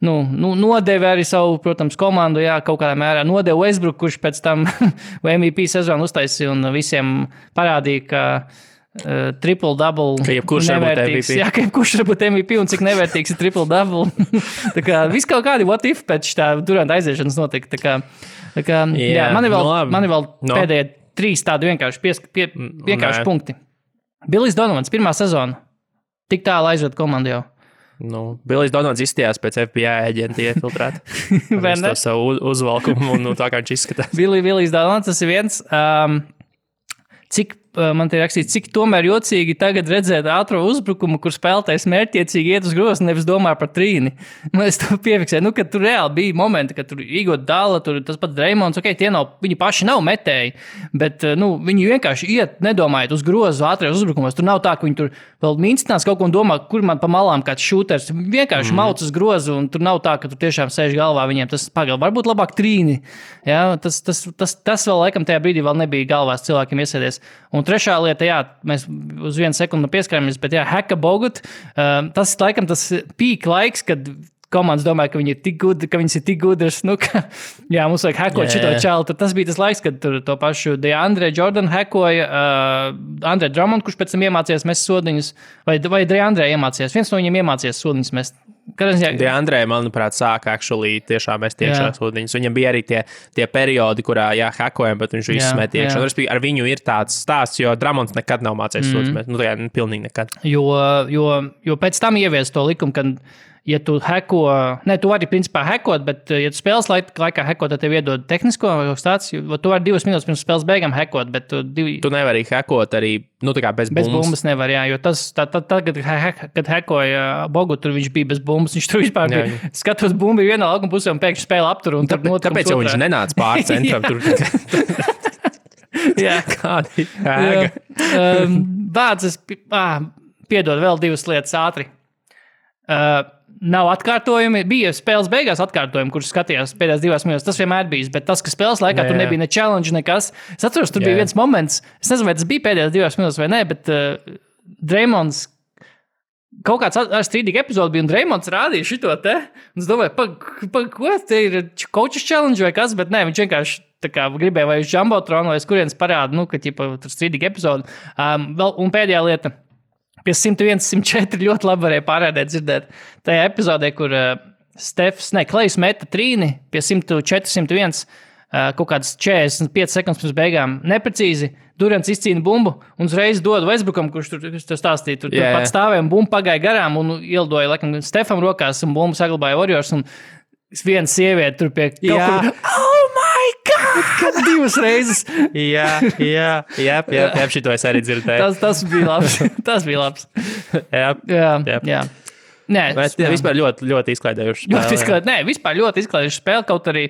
nodevi arī savu, protams, komandu, jā, kaut kādā mērā nodevi Westbrook, kurš pēc tam MVP sezonu uztaisīja un visiem parādīja, ka triple-double nevērtīgs. Jā, ka jebkurš var būt MVP un cik nevērtīgs ir triple-double. Tā kā viss kaut kādi what if pēc tā Duranta aiziešanas notika. Tā kā jā, man ir vēl pēdējie 3 tādi vienkārši punkti. Billijs Donovans, pirmā sezona. Tik tālu aizved komandu jau. Billijs Donovans izstījās pēc FBI aģenta iefiltrēt. Viņš to savu uzvalkumu un tā kā viņš izskatās. Billijs Donovans, tas ir viens. Cik man te rakstīts, cik tomēr jocīgi tagad redzēt ātro uzbrukumu, kur spēlētājs mērķiecīgi iet uz grozu, nevis domā par trīni. Es to piefiksēju, ka tur reāli bija momenti, kad tur Igot Dalla, tur tas pats Dreimons, viņi paši nav metēji, bet viņi vienkārši iet, nedomājot uz grozu ātrijos uzbrukumos. Tur nav tā, ka viņi tur vēl minstinās kaut ko un domā, kur man pa malām kāds šūters. Vienkārši mauc uz grozu, un tur nav tā, ka tur tiešām sēž galvā viņiem tas pagaļ. Varbūt labāk trīni. Ja? Tas vēl laikam tajā brīdī vēl nebija galvās cilvēkiem iesēdies. Un trešā lieta, jā, mēs uz 1 sekundi pieskaramies, bet jā, Heka Bogut, tas laikam tas pīk laiks, kad komandas domāja, ka viņi ir tik gudri, ka viņas ir tik gudras, jā, mums vajag hekot šito čalu. Tas bija tas laiks, kad tur to pašu DeAndre Jordan hekoja, Andre Drummond, kurš pēc tam iemācījās mest sodiņus, vai DeAndre iemācījās. Viens no viņiem iemācījās sodiņus mest. DeAndre, manuprāt, sāka tiešām mest iekšā sodiņus. Viņam bija arī tie periodi, kurā, hekojam, bet viņš visu met iekšā. Ar viņu ir tāds stāsts, jo Drummonds nekad nav mācījis sodiņus mest. Pilnīgi nekad. Jo pēc tam ievies to likumu, kad ja tu heko, tu vari principā hekot, bet ja tu spēles laikā hekot, tad tev iedod tehnisko vai kaut kas tāds, jo tu vari 2 minūtes pirms spēles beigām hekot, bet tu nevari hekot arī, tā kā bez bumbas. Bez bumbas nevar, jā, jo tas, kad hekoja Bogu, tur viņš bija bez bumbas, viņš tur vispār bija, skatos bumbu vienā laukuma pusē un pēkšņi spēle aptur. Un tāpēc jau viņš nenāca pār centram tur. Jā. Kādi ēga. Bādzes, piedod vēl 2 lietas ātri. Nav atkārtojumi. Bija spēles beigās atkārtojumi, kurus skatījās pēdējās 2 minūtes. Tas vienmēr bijis, bet tas, ka spēles laikā tur nebija ne challenge, nekas. Es atceros, tur bija viens moments, es nezinu, vai tas bija pēdējās 2 minūtes vai ne, bet Draymonds kaut kāds ar strīdīgi epizodi bija, un Draymonds rādīja šito te. Un es domāju, ko te ir coaches challenge vai kas, bet nē, viņš vienkārši tā kā gribēja vai uz Jumbotronu, vai uz kurienes parāda, ka tur strīdīgi epizodi. Un pēdējā lieta. Pie 101, 104 ļoti labi varēja pārēdēt dzirdēt. Tajā epizodē, kur Klejs meta trīni pie 104, 101, kaut kādas 45 sekundes pirms beigām neprecīzi. Durants izcīna bumbu un uzreiz dod Westbrookam, kurš tur stāstīja. Tur pat stāvēja un bumba pagāja garām un ielidoja laikam Stefam rokās un bumbu saglabāja Warriors. Un viena sieviete tur pie kaut kur. Oh my God! 2 reizes. Jā, šito es arī dzirdēju. Tas bija labs. Jā. Nē, vispār ļoti izklaidējuši spēle. Vispār ļoti izklaidējuši spēle, kaut arī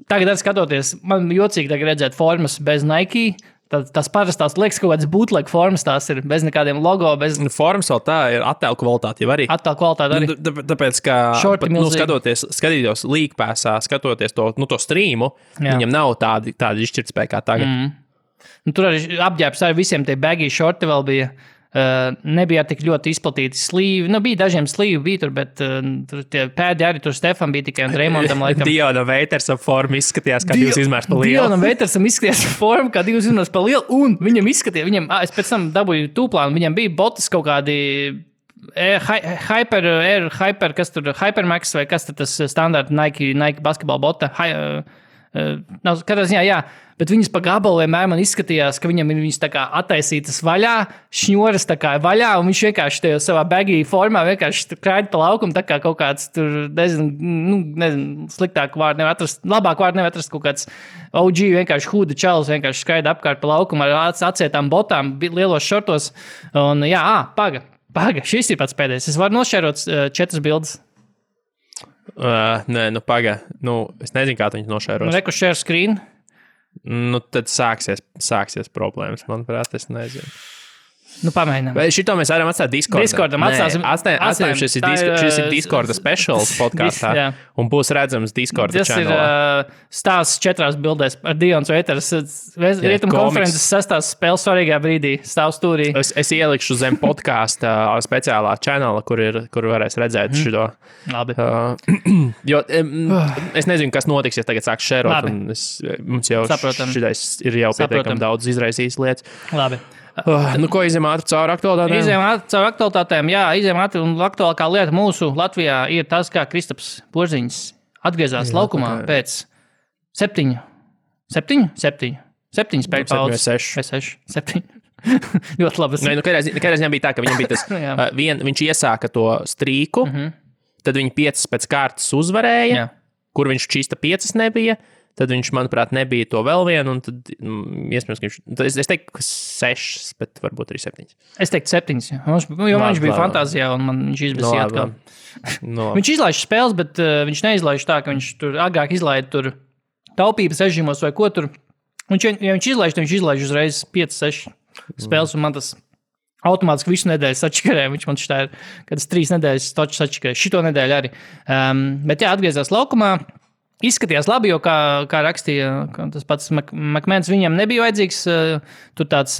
tagad arī skatoties, man jocīgi tagad redzēt formas bez Nike. Tas parastās liekas kaut kādas bootleg formas, tās ir bez nekādiem logo. Formas vēl tā ir attēlu kvalitāte jau arī. Attēlu kvalitāte arī. Tāpēc, ka skatītos League Passā, skatoties to streamu, viņam nav tāda izšķirtspēja kā tagad. Tur arī apģērbs ar visiem tie baggy shorti vēl bija. Nebija tik ļoti izplatīti slīvi. Bija dažiem slīvi, bet tur tie pēdi arī tur Stefan bija tikai un Draymondam laikam. Diona Veitersa forma izskatījās kā 2 izmērs pa lielu. Diona Veitersam izskatījās forma kā 2 izmērs pa lielu, un viņam izskatījās, es pēc tam dabūju tūplānu, viņam bija botas kaut kādi Hypermax vai kas tad tas standarta Nike basketball bota. Katrā ziņā, jā. Bet viņas pa gabalu vienmēr man izskatījās, ka viņam ir viņas tā kā attaisītas vaļā, šņoras tā kā vaļā, un viņš vienkārši tajā savā baggy formā vienkārši krāja pa laukumu, tā kā kaut kāds tur, nezinu, sliktāk vārdu nevar atrast, labāk vārdu nevar atrast, kaut kāds OG vienkārši huda čalis, vienkārši skraida apkārt pa laukumu ar atsietām botām, lielos šortos, un jā, paga, šis ir pats pēdējais. Es varu nošērot 4 bildes. Nē, paga, es nezinu, kā tu viņu nošēros. Reku share screen. Tad sāksies problēmas, manuprāt, es nezinu. Pamēģinām. Vai šito mēs varam atstāt Discordam? Discordam atstājam, šis ir Discorda specials podkāstā, un būs redzams Discorda channelā. Tas ir stāsts 4 bildēs ar Dions Veiters. Rietumu konferences 6. spēles svarīgā brīdī stāv stūrī. Es ielikšu zem podkāsta speciālā channela, kur varēs redzēt šito. Labi. Jo es nezinu, kas notiks, ja tagad sāks šērot, un mums jau šitais ir jau pietiekami daudz izraisījis lietas. Labi. Ko izējām ātri caur aktualitātēm? Izējām ātri caur aktualitātēm, jā, un aktuālākā lieta mūsu Latvijā ir tas, kā Kristaps Porziņš atgriezās laukumā pēc 7 spēļu pauzes. 7. Ļoti labi. Kādā ziņā bija tā, ka viņam bija tas, viņš iesāka to strīku, tad viņi 5 pēc kārtas uzvarēja, kur viņš čista 5 nebija. Tad viņš, manuprāt, nebija to vēl vienu, un tad, iespējams, ka viņš... Es teiktu, ka 6, bet varbūt arī 7. Es teiktu 7, jo viņš bija fantāzijā, un man viņš izbēsīja atkal. Viņš izlaiž spēles, bet viņš neizlaiž tā, ka viņš tur agrāk izlaida tur taupības režīmos vai ko tur. Ja viņš izlaiž, tad viņš izlaiž uzreiz 5-6 spēles, un man tas automātiski visu nedēļu sačakarē. Viņš man šitā ir, kad es 3 nedēļas toču sačakarē. Šito nedēļu arī. Bet jā, atgriezās laukumā. Izskatījās labi, jo, kā rakstīja tas pats Makmēns, viņam nebija vajadzīgs tur tāds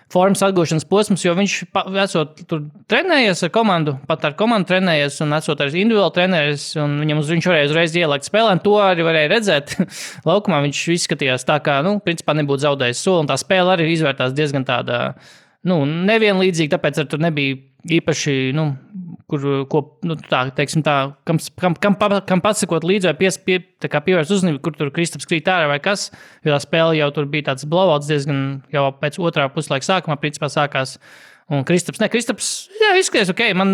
formas atgūšanas posms, jo viņš esot tur trenējies ar komandu, pat ar komandu trenējies un esot arī individuāli trenējies, un viņš varēja uzreiz ielikt spēlē, un to arī varēja redzēt. Laukumā viņš izskatījās tā, kā, principā nebūtu zaudējis soli, un tā spēle arī izvērtās diezgan tāda, nevienlīdzīga, tāpēc ar tur nebija īpaši, kam pasakot līdzi vai pievērst uzmanību, kur tur Kristaps krīt ārā vai kas, jo tā spēle jau tur bija tāds blowouts diezgan jau pēc otrā puslaika sākumā, principā sākās, Un Kristaps, jā, izskaties ok, man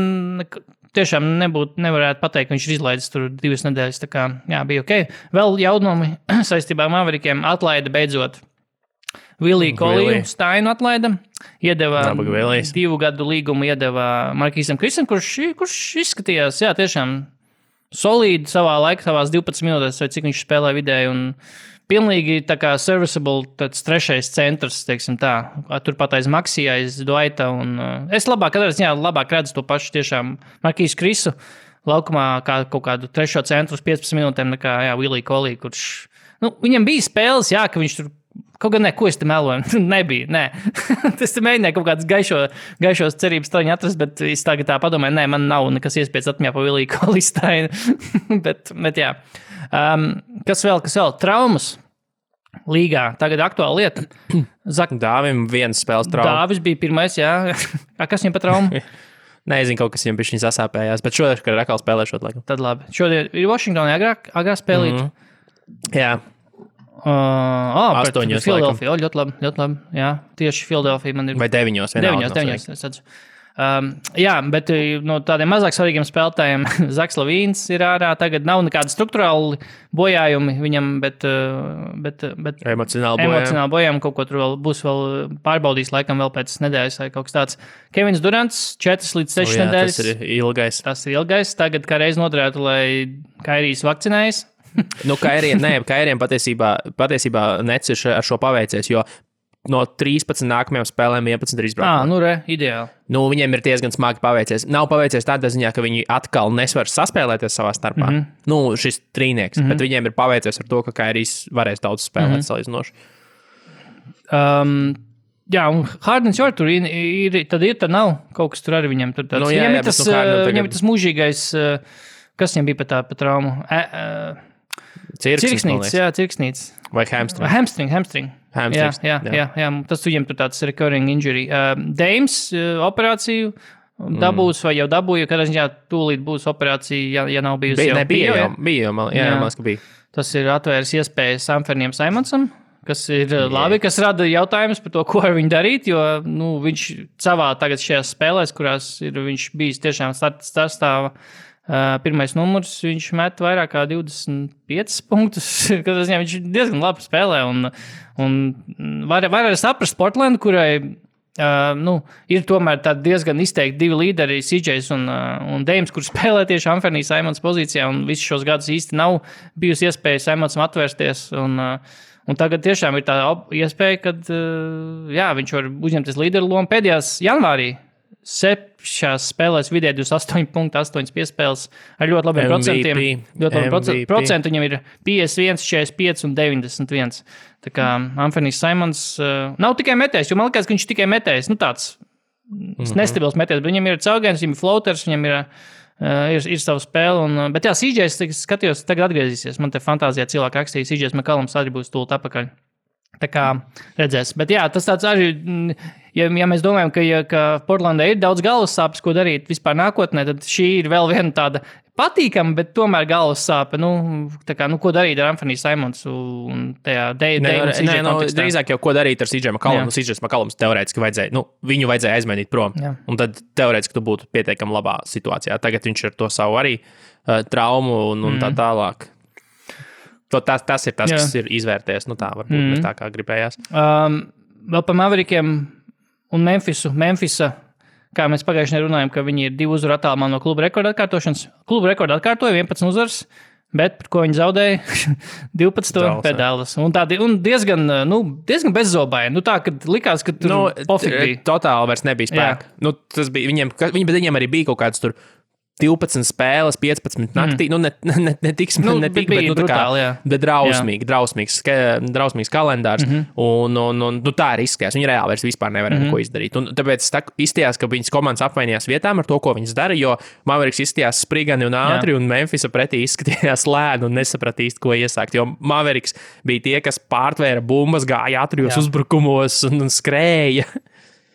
tiešām nevarētu pateikt, ka viņš ir izlaidis tur 2 nedēļas, tā kā, jā, bija ok. Vēl jaunumi saistībā ar Maverikiem atlaida beidzot. Williju Koliju Steinu atlaida, iedeva 2 gadu līgumu, iedeva Markīsam Krisam, kurš izskatījās, jā, tiešām solīdi savās 12 minūtēs, vai cik viņš spēlē vidēji, un pilnīgi tā kā serviceable, tāds 3. centrs, teiksim tā, turpat aiz Maksija, aiz Dwighta, un es labāk redzu to pašu tiešām Markīsu Krisu laukumā kā kaut kādu 3. centru uz 15 minūtēm, nekā, jā, Williju Koliju, kurš, viņam bija spēles, jā, ka viņš tur, kaut gan ko es te meloju, nebija, nē. Es te mēģināju kaut kādas gaišos cerības traņu atrast, bet es tagad tā padomāju, nē, man nav nekas iespējas atmiņā pa Williju Koliju Steinu, bet jā. Kas vēl? Traumas līgā. Tagad aktuāla lieta. Dāvim viens spēles trauma. Dāvis bija pirmais, jā. Kas viņam pa traumu? Nezinu, kaut kas viņam bišķiņ sasāpējās, bet šodien, kad ir atkal spēlēšot, laikam. Tad labi. Šodien ir Washingtonā agrāk spēlīt. Jā. Pret Philadelphia. Ļoti labi. Jā, tieši Philadelphia man ir. Vai 9. 9, es redzu. Jā, bet no tādiem mazāk svarīgiem spēlētājiem Zaks Lavīns ir ārā. Tagad nav nekāda struktūrāli bojājumi viņam, bet emocionāli bojājumi. Kaut ko tur vēl būs pārbaudījis laikam vēl pēc nedēļas vai kaut kas tāds. Kevins Durants 4 līdz 6 nedēļas. Tas ir ilgais. Tagad kā reiz noderētu, lai Kairijs vakcinējas. Kairiem patiesībā Nets ir ar šo paveicies, jo no 13 nākamajām spēlēm 11 ir izbraukumi. Ideāli. Viņiem ir diezgan smagi paveicies. Nav paveicies tādā ziņā, ka viņi atkal nesvar saspēlēties savā starpā. Šis trīnieks, bet viņiem ir paveicies ar to, ka Kairijs varēs daudz spēlēt salīdzinoši. Jā, un Hardens jau tur ir, tad nav kaut kas tur arī viņam. Viņam ir tas mūžīgais, kas viņam bija pa traumu? Cirksnīts. Vai Hamstring. Jā. Tas viņam tur tāds recurring injury. Dames operāciju dabūs vai jau dabūja, kad ziņā tūlīt būs operācija, ja nav bijusi bija, man liekas, ka bija. Tas ir atvērs iespējas Samferniem Simonsam, kas ir labi, kas rada jautājumus par to, ko ar viņu darīt, jo viņš savā tagad šajās spēlēs, kurās ir viņš bijis tiešām startstāva, pirmais numurs, viņš met vairāk kā 25 punktus, kad viņš diezgan labi spēlē, un var saprast Portlandu, kurai ir tomēr tādi diezgan izteikti 2 līderi, CJs un Dames, kur spēlē tieši Anthony Simons pozīcijā, un visus šos gadus īsti nav bijusi iespēja Simonsam atvērsties, un tagad tiešām ir tā iespēja, kad viņš var uzņemties līderu lomu pēdējās janvārī. 7 spēlēs vidē 28 punkti, 8 piespēles ar ļoti labiem procentiem. Ļoti labi procenti viņam ir 51, 45 un 91. Tā kā Anthonijs Simons nav tikai metējs, jo man liekas, ka viņš tikai metējs. Tāds nestabils metējs, bet viņam ir caurgājums, viņam ir floaters, viņam ir savu spēli. Bet jā, CJs, skatījos, tagad atgriezīsies. Man te fantāzijā cilvēki rakstīja, CJs McCallums arī būs tūlīt apakaļ. Tā kā redzēs. Bet jā, tas tāds arī, ja mēs domājam, ka Portlandē ir daudz galvas sāpes, ko darīt vispār nākotnē, tad šī ir vēl viena tāda patīkama, bet tomēr galvas sāpe. Ko darīt ar Anthony Simons un tajā drīzāk jau ko darīt ar CJ McCollum. CJ McCollums teorētiski vajadzēja, viņu vajadzēja aizmainīt prom. Jā. Un tad teorētiski tu būtu pietiekami labā situācijā. Tagad viņš ar to savu arī traumu un tā tālāk. Tas ir tas, kas ir izvērties. Tā varbūt ne tā, kā gribējās. Vēl par Maverikiem un Memphisa, kā mēs pagājušajā runājām, ka viņi ir 2 uzvaru attālumā no kluba rekorda atkārtošanas. Kluba rekorda atkārtoja 11 uzvaras, bet par ko viņi zaudēja 12 pēc Dallas. Un diezgan bezzobaini. Tā, kad likās, ka tur pofīgi bija. Totāli vairs nebija spēka. Tas bija viņiem arī bija kaut kāds tur 12 spēles, 15 naktī, ne tik, bet drausmīgs kalendārs, un tā ir izskatās. Viņi reāli vairs vispār nevarēja neko izdarīt. Un tāpēc izstījās, ka viņas komandas apvainījās vietām ar to, ko viņas dara, jo Mavericks izstījās sprigani un ātri, un Memphisa pretī izskatījās lēni un nesaprat īsti, ko iesākt, jo Mavericks bija tie, kas pārtvēra bumbas, gāja ātrijos uzbrukumos un skrēja.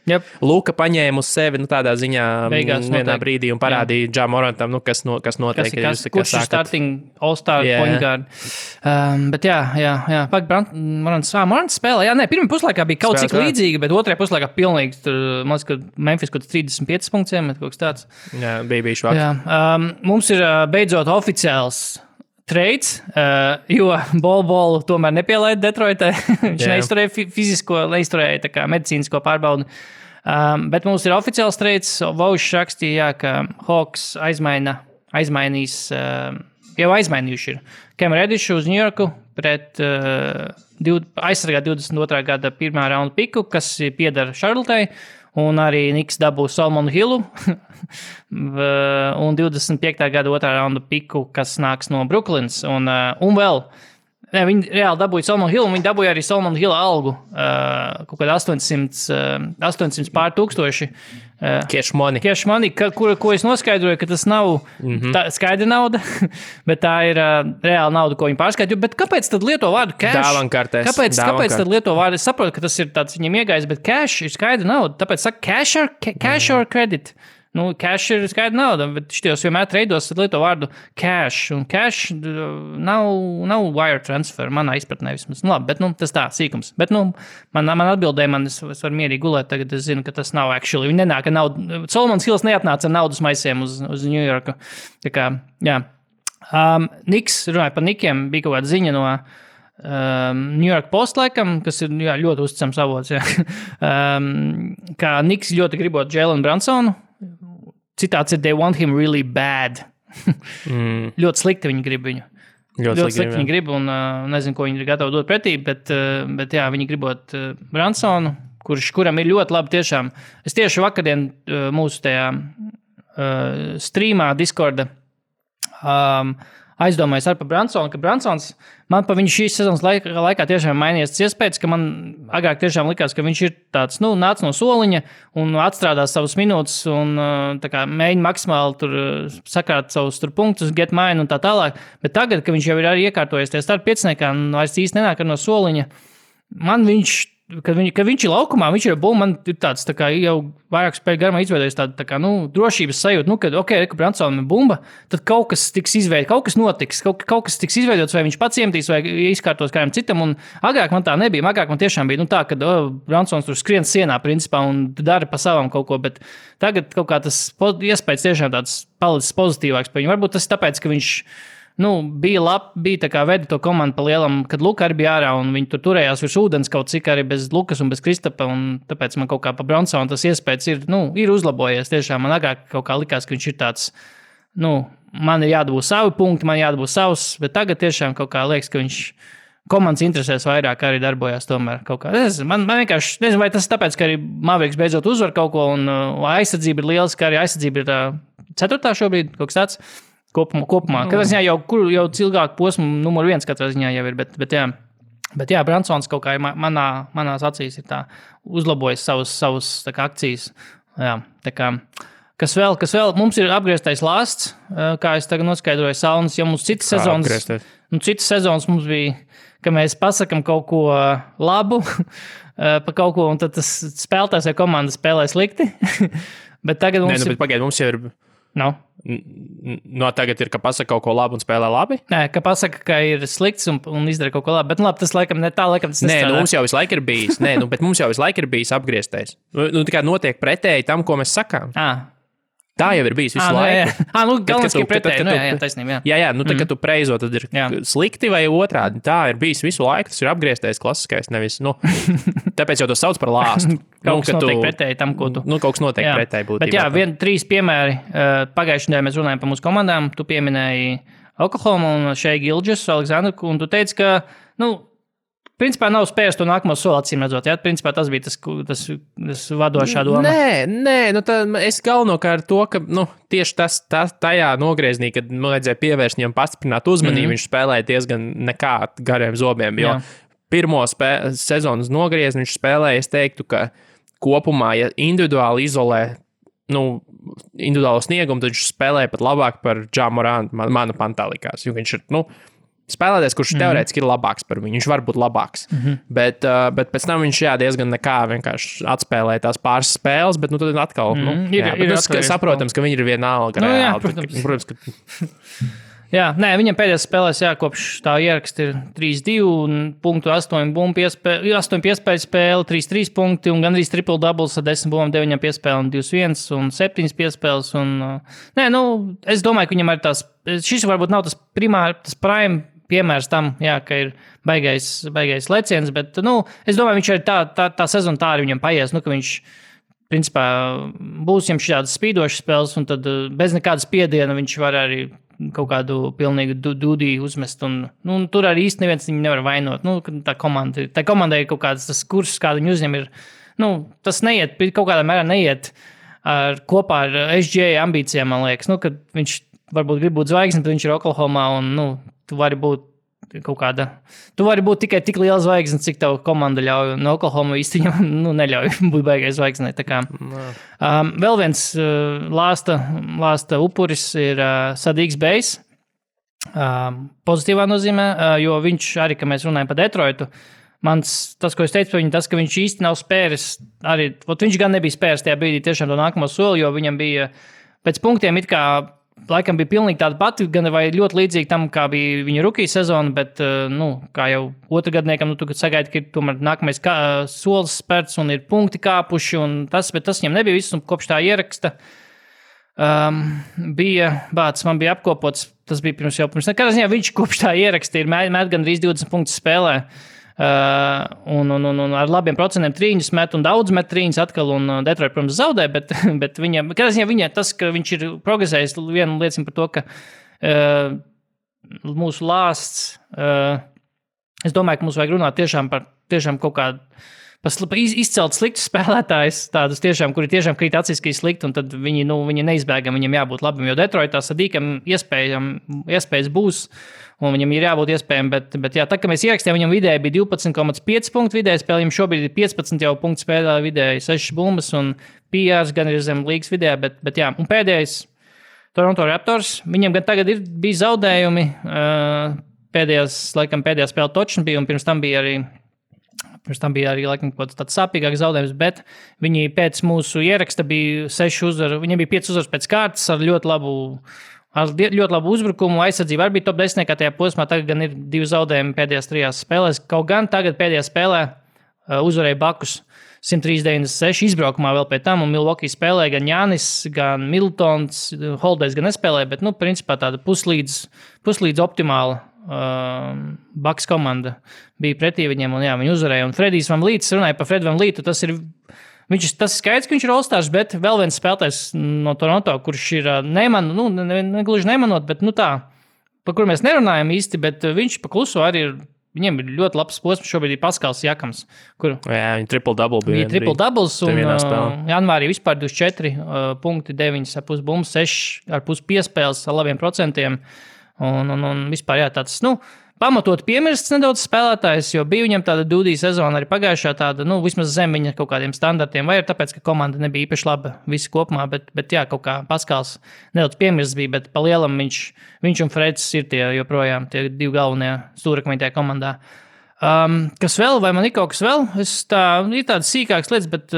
Yep. Luka paņēma uz sevi tādā ziņā Beigās vienā brīdī un parādīja Ja Morantam, kas notiek. Kurš ir starting all-star point guard. Bet jā. Morants spēlē. Jā, pirmā puslaikā bija kaut cik līdzīga, bet otrajā puslaikā pilnīgi, man liekas, ka Memphis kaut 35 punktiem, kaut kas tāds. Jā, bija švaks. Jā. Mums ir beidzot oficiāls trades, jo Bolu tomēr nepielaida Detroitē. Viņš neizturēja fizisko, neizturēja tā kā medicīnisko pārbaudi. Bet mums ir oficiāls trades. Vaušs rakstīja, ka Hawks aizmainīs, jau aizmainījuši ir Cam Reddišu uz New Yorku pret aizsargāt 22. gada pirmā raunda piku, kas pieder Charlottei, un arī Niks dabū Solomonu Hillu un 25. gada otrā raunda piku, kas nāks no Brooklynas. Un vēl viņi reāli dabūja Solomonu Hillu, un viņi dabūja arī Solomonu Hilla algu, kaut kādā 800 pār tūkstoši. Cash money, ko es noskaidroju, ka tas nav tā skaidra nauda, bet tā ir reāla nauda, ko viņi pārskaidroja. Bet kāpēc tad lieto vārdu cash? Dāvankartēs. Kāpēc tad lieto vārdu? Es saprotu, ka tas ir tāds viņam iegājis, bet cash ir skaidra nauda. Tāpēc saka cash or credit. Cash ir skaidra nauda, bet šitos vienmēr treidos lieto vārdu cash. Un cash nav wire transfer, manā izpratnē vismaz. Labi, bet tas tā, sīkums. Bet man atbildēja, es varu mierīgi gulēt, tagad es zinu, ka tas nav actually. Viņi nenāk ar naudu. Solomons Hills neatnāca ar naudas maisiem uz New Yorku. Tā kā, jā. Niks, runāja par Nikiem, bija kaut kāda ziņa no New York Post laikam, kas ir ļoti uzticams avots, kā Niks ļoti gribot Jalen Brunsonu. Citāts ir, they want him really bad. Ļoti slikti viņi grib viņu. Ļoti slikti viņi grib, un nezinu, ko viņi ir gatavi dot pretī, bet jā, viņi gribot Brunsonu, kuram ir ļoti labi tiešām. Es tieši vakardien mūsu tajā streamā Discorda aizdomājos ar par Brunsonu, ka Brunsons man pa viņu šīs sezonas laikā tiešām mainījies iespējas, ka man agrāk tiešām likās, ka viņš ir tāds, nāc no soliņa un atstrādās savus minūtes un tā kā mēģina maksimāli tur sakrāt savus tur punktus, get mine un tā tālāk, bet tagad, ka viņš jau ir arī iekārtojies tie starp pieciniekā un vairs īsti nenāk no soliņa, man viņš, kad viņš ir laukumā, viņš ir bumba, man ir tāds tā kā jau vairāk spēļu garumā izveidojas tā kā, drošības sajūta, kad, ka Brunsonam ir bumba, tad kaut kas tiks izveidots, kaut kas notiks, kaut kas tiks izveidots, vai viņš pats iemetīs, vai izkārtos kādam citam, un agrāk man tā nebija, agrāk man tiešām bija, tā, kad Brunsons tur skrien sienā, principā, un dara pa savam kaut ko, bet tagad kaut kā tas iespējas tiešām tāds palicis pozitīvāks par viņu. Varbūt tas ir tāpēc, ka viņš bija tā kā veda to komandu pa lielam, kad Luka arī bija ārā, un viņi tur turējās virs ūdens kaut cik arī bez Lukas un bez Kristapa, un tāpēc man kaut kā pa Brunsonu tas iespējas ir uzlabojies. Tiešām man agrāk kaut kā likās, ka viņš ir tāds, man ir jādabū savi punkti, man jādabū savs, bet tagad tiešām kaut kā liekas, ka viņš komandas interesēs vairāk arī darbojās tomēr kaut kā. Man vienkārši, nezinu, vai tas tāpēc, ka arī Mavericks beidzot uzvar kaut ko, un aizsardzība ir liels, ka arī aizsardzība ir 4. šobrīd, kaut kas tāds. Kopumā. Katrā ziņā jau ilgāku posmu numur 1 katrā ziņā jau ir, bet jā, Brunsons kaut kā manās acīs ir tā uzlabojis savus tā kā akcijas. Jā, tā kā, kas vēl? Mums ir apgrieztais lāsts, kā es tagad noskaidroju saunas, jo mums citas sezonas mums bija, ka mēs pasakam kaut ko labu pa kaut ko, un tad tas spēlētājs vai komanda spēlē slikti. Bet tagad mums bet pagaid, mums jau ir... tagad ir, ka pasaka kaut ko labu un spēlē labi? Nē, ka pasaka, ka ir slikts un izdara kaut ko labi. Bet labi, tas laikam ne tā, tas nestrādā. Mums jau visu laiku ir bijis. Bet mums jau visu laiku ir bijis apgrieztais. Tā kā notiek pretēji tam, ko mēs sakām. Tā jau ir bijis visu laiku. Galvenais, ka pretēji. Jā, taisnība. Jā, kad tu preizo, tad ir slikti vai otrādi. Tā ir bijis visu laiku. Tas ir apgrieztais klasiskais, nevis, tāpēc jau to sauc par lāstu. Kaut kas notiek pretēji tam, ko tu... Kaut kas notiek pretēji būtībā. Bet jā, 3 piemēri. Pagājušajā nedēļā mēs runājam par mūsu komandām. Tu pieminēji Oklahoma un Shai Gilgeous, Aleksandru, un tu teici, ka, principā nav spējis to nākamo soli acīm redzot. Jā, principā tas bija tas vadošā doma. Nē, es galvenokārt to, ka tieši tas tajā nogrieznī, kad vajadzēja pievērst viņam pastiprināt uzmanību, viņš spēlēja diezgan nekā gariem zobiem, jo pirmo sezonas nogriezni viņš spēlēja, es teiktu, ka kopumā, ja individuāli izolē individuālo sniegumu, tad viņš spēlēja pat labāk par Ja Morantu, mana pantā likās, jo viņš ir, spēlētājs, kurš teorētiski ir labāks par viņu. Viņš var būt labāks. Bet pēc tam viņš diezgan nekā vienkārši atspēlēja tās pāris spēles, bet tad atkal saprotams, ka viņi ir vienalga. Jā, protams, ka... Jā, viņam pēdējās spēlēs kopš tā ieraksta ir 3-2, 8 piespēļu spēle, 3-3 punkti un gandrīz triple doubles ar 10 bumbām, 9 piespēlēm, 2-1 un 7 piespēles. Es domāju, ka viņam arī šis varbūt nav tas prime piemērs tam, ka ir baigais leciens, bet es domāju, viņš arī tā sezona tā arī viņam paies, ka viņš principā būs viņam šādas spīdošas spēles un tad bez nekādas spiediena viņš var arī kaut kādu pilnīgu dūdī uzmest. Tur arī īsti neviens viņu nevar vainot. Tā komandai ir kaut kāds tas kurs, kādu viņi uzņem ir. Tas neiet, kaut kādā mērā neiet kopā ar SGA ambīcijām, man liekas. Kad viņš varbūt grib būt zvaigznes, bet viņš ir Oklahomā un tu vari būt kaut kāda. Tu vari būt tikai tik liela zvaigzne, cik tev komanda ļauj. No Oklahoma īsti viņam neļauj būt baigai zvaigznei. Vēl viens lāsta upuris ir Sadīgs Bejs. Pozitīvā nozīmē, jo viņš arī, ka mēs runājam par Detroitu, tas, ko es teicu par viņu, tas, ka viņš īsti nav spēris, arī, viņš gan nebija spēris tajā brīdī tiešām to nākamo soli, jo viņam bija pēc punktiem it kā laikam bija pilnīgi tāda pati, gan vai ļoti līdzīga tam, kā bija viņa rookie sezona, bet, kā jau otrgadniekam, tu sagaidi, ka ir tomēr nākamais solis spērts un ir punkti kāpuši, bet tas viņam nebija viss, un kopš tā ieraksta man bija apkopots, tas bija pirms nekādā ziņā, viņš kopš tā ieraksta ir met gandrīz 20 punktus spēlē, un ar labiem procentiem trīņus met un daudz met trīņus atkal un Detroit, protams, zaudē, bet viņa tas, ka viņš ir progresējis, viena liecina par to, ka mūsu lāsts, es domāju, ka mums vajag runāt tiešām kaut kādu izcelt sliktus spēlētājus, tādus tiešām, kuri tiešām krīt acīs, ka ir slikti, un tad viņi neizbēgam, viņam jābūt labam, jo Detroitā Sadīkam iespējas būs, un viņam ir jābūt iespējām, bet jā, tā, ka mēs ierakstījām, viņam vidēji bija 12,5 punktu vidēji spēlē, viņam šobrīd ir 15 jau punktu spēlē vidēji, 6 bumbas un PRs gan ir zem līgas vidējā, bet jā, un pēdējais Toronto Raptors, viņam gan tagad bija zaudējumi, pēdējā spēle točna bija, un pirms tam bija arī laikam kaut tāds sāpīgāks zaudējums, bet viņi pēc mūsu ieraksta bija 6 uzvaru, viņiem bija 5 uzvaras pēc kārtas ar ļoti labu uzbrukumu, aizsardzību arī bija top 10, kā tajā posmā, tagad gan ir 2 zaudējumi pēdējās 3 spēlēs, kaut gan tagad pēdējā spēlē uzvarēja Bakus 103-96 izbraukumā vēl pēc tam, un Milwaukee spēlēja gan Jānis, gan Middletons, Holidays gan nespēlēja, bet, principā tāda puslīdz optimāla Bucks komanda bija pretī viņiem, un jā, viņi uzvarēja. Un Fredijs Van Līts, runāja par Fredu Van Lītu, tas ir skaidrs, ka viņš ir All-Stars, bet vēl viens spēlētājs no Toronto, kurš ir negluži nemanot, bet tā, par kuru mēs nerunājam īsti, bet viņš pa kluso arī ir, viņiem ir ļoti labs posms, šobrīd ir Paskals Jakams, kur... Jā, viņi triple-double bija. Viņi triple-doubles, un janvārī vispār 24 punkti, 9,5 bumbas, 6,5 piespēles ar labiem procentiem. Un vispār jā, tāds, pamatot piemirsts nedaudz spēlētājs, jo bija viņam tāda dūdī sezona arī pagājušā tāda, vismaz zem viņa kaut kādiem standartiem, vai ir tāpēc, ka komanda nebija īpaši laba visi kopumā, bet jā, kaut kā Paskals nedaudz piemirsts bija, bet pa lielam viņš un Freds ir joprojām tie 2 galvenie stūrakmeņi tajā komandā. Kas vēl, vai man ir kaut kas vēl? Ir tādas sīkākas lietas, bet,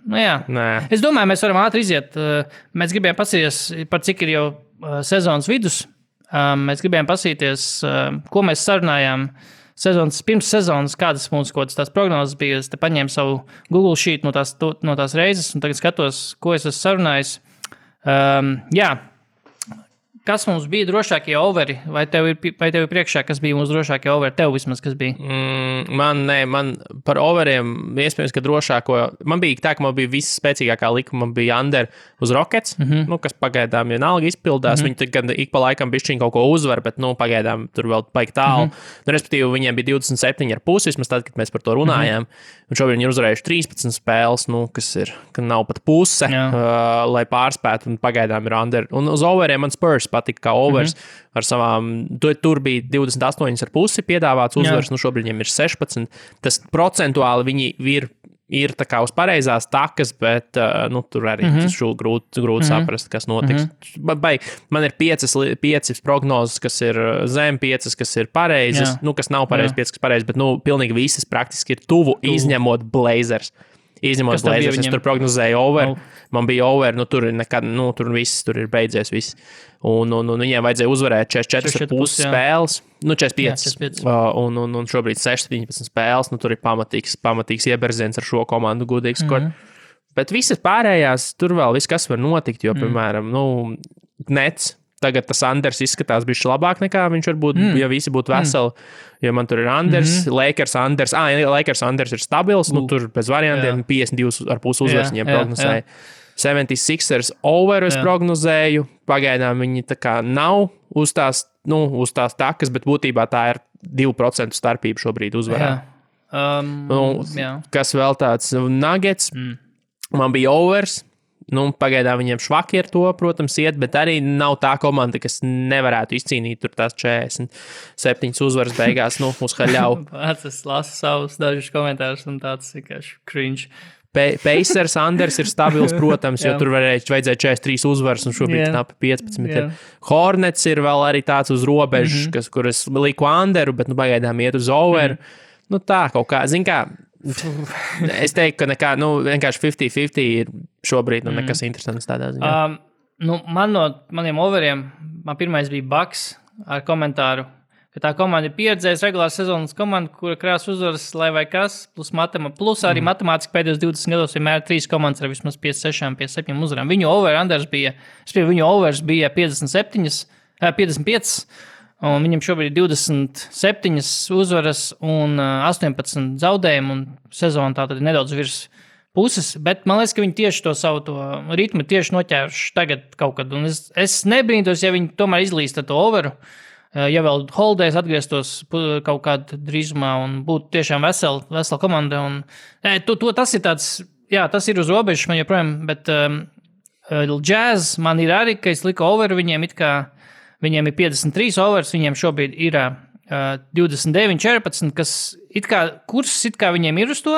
jā. Nē. Es domāju, mēs varam ātri iziet. Mēs gribējām pasīties, par cik ir jau sezonas vidus. Mēs gribējām pasīties, ko mēs sarunājām pirms sezonas, kādas mums kaut kādas tās prognozes bija. Es te paņēmu savu Google Sheet no tās reizes, un tagad skatos, ko es esmu sarunājis. Jā, kas mums bija drošākie overi? Vai tev ir priekšā, kas bija mūsu drošākie overi? Tev vismaz, kas bija? Man par overiem, iespējams, ka drošāko, man bija tā, ka man bija viss spēcīgākā likuma, man bija under uz Rockets, kas pagaidām vienalga izpildās, viņi gan ik pa laikam bišķiņ kaut ko uzvar, bet, pagaidām tur vēl paik tālu. Respektīvi, viņiem bija 27,5, vismaz tad, kad mēs par to runājām, un šobrīd viņi ir uzvarējuši 13 spēles, ka nav pat puse, lai pārspētu, un pagaidām ir under. Un uz overiem man Spurs patika kā overs ar savām, tur bija 28,5 piedāvāts uzvars, šobrīd viņiem ir 16. Tas procentuāli viņi ir ir tā kā uz pareizās takas, bet tur arī grūti saprast, kas notiks. Man ir 5 prognozes, kas ir zem 5, kas ir pareizas, kas nav pareizas, 5, kas pareizas, bet piknīgi visas praktiski ir tuvu. Izņemot Blazers. Es tur prognozēju over. Man bija over, tur ir nekad, tur viss, tur ir beidzies viss. Un viņiem vajadzēja uzvarēt 44,5 spēles, 45. Un šobrīd 17 spēles, tur ir pamatīgs ieberziens ar šo komandu, gudīgs. Bet visas pārējās, tur vēl viss, kas var notikt, jo, piemēram, Nets. Tagad tas Anders izskatās bišķi labāk nekā viņš varbūt, ja visi būtu veseli. Jo man tur ir Anders, Lakers Anders ir stabils, tur bez variantiem 52,5 uzvaras viņiem prognozēja. 76ers over es prognozēju, pagaidām viņi tā kā nav uz tās takas, bet būtībā tā ir 2% starpība šobrīd uzvarā. Kas vēl tāds Nuggets, man bija overs. Pagaidām viņiem švaki ar to, protams, iet, bet arī nav tā komanda, kas nevarētu izcīnīt tur tās 47 uzvaras beigās, uz haļau. Es lasu savus dažus komentārus un tāds vienkārši cringe. Pacers Anders ir stabils, protams, jo tur vajadzēja 43 uzvaras un šobrīd knapi 15. Hornets ir vēl arī tāds uz robežas, kur es liku Anderu, bet pagaidām iet uz over. Tā kaut kā, zin kā, es teiktu, ka vienkārši 50-50 ir šobrīd nekas interesants tādā ziņā. Man no maniem overiem, man pirmais bija Bucks ar komentāru, ka tā komanda ir pieredzējusi regulāras sezonas komanda, kura krās uzvaras, lai vai kas, plus arī matemātiski pēdējos 20 gados vienmēr 3 komandas ar vismaz 56-57 uzvarām. Viņu overs bija 55, un viņam šobrīd ir 27 uzvaras un 18 zaudējumu, un sezona tātad ir nedaudz virs puses, bet man liekas, ka viņi tieši to savu ritmu tieši noķēruši tagad kaut kad, un es nebrīntos, ja viņi tomēr izlīst ar to overu, ja vēl Holidays atgrieztos kaut kādā drīzumā un būtu tiešām vesela komanda, un tas ir tāds, tas ir uz robežas man joprojām, bet Jazz man ir arī, ka es liku overu viņiem Viņiem ir 53 overs, viņiem šobrīd ir 29-14, kas kurs viņiem ir uz to,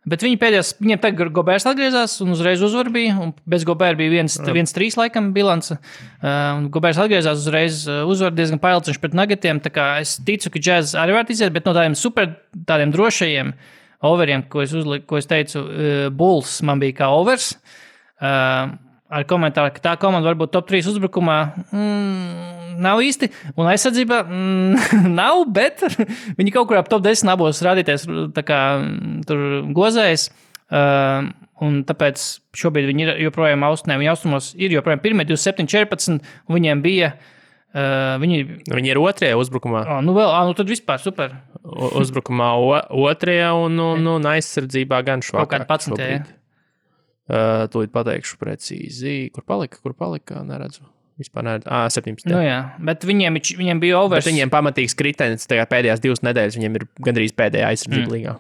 bet viņiem tagad Gobērs atgriezās un uzreiz uzvar bija, un bez Gobēra bija 1-3 laikam bilance, un Gobērs atgriezās uzreiz uzvar diezgan pailciņš pret Nuggetiem, tā kā es ticu, ka Jazz arī var iziet, bet no tādiem drošajiem overiem, ko es teicu, Bulls man bija kā overs, ar komentāru, ka tā komanda varbūt top 3 uzbrukumā nav īsti, un aizsardzībā nav, bet viņi kaut kur ap top 10 abos rādīties tā kā tur gozējas, un tāpēc šobrīd viņi ir joprojām viņi austrumos ir joprojām pirmie 27-14, un viņiem bija Viņi ir otrajā uzbrukumā. Tad vispār super. Uzbrukumā otrajā un aizsardzībā gan švakāk. Kaut kādā 11. Tūlīt pateikšu precīzi. Kur palika? Neredzu. Vispār neredzu. 17. Bet viņiem bija overs. Bet viņiem pamatīgs kritenis, pēdējās 2 nedēļas viņiem ir gandrīz pēdējā aizsardzība līgā.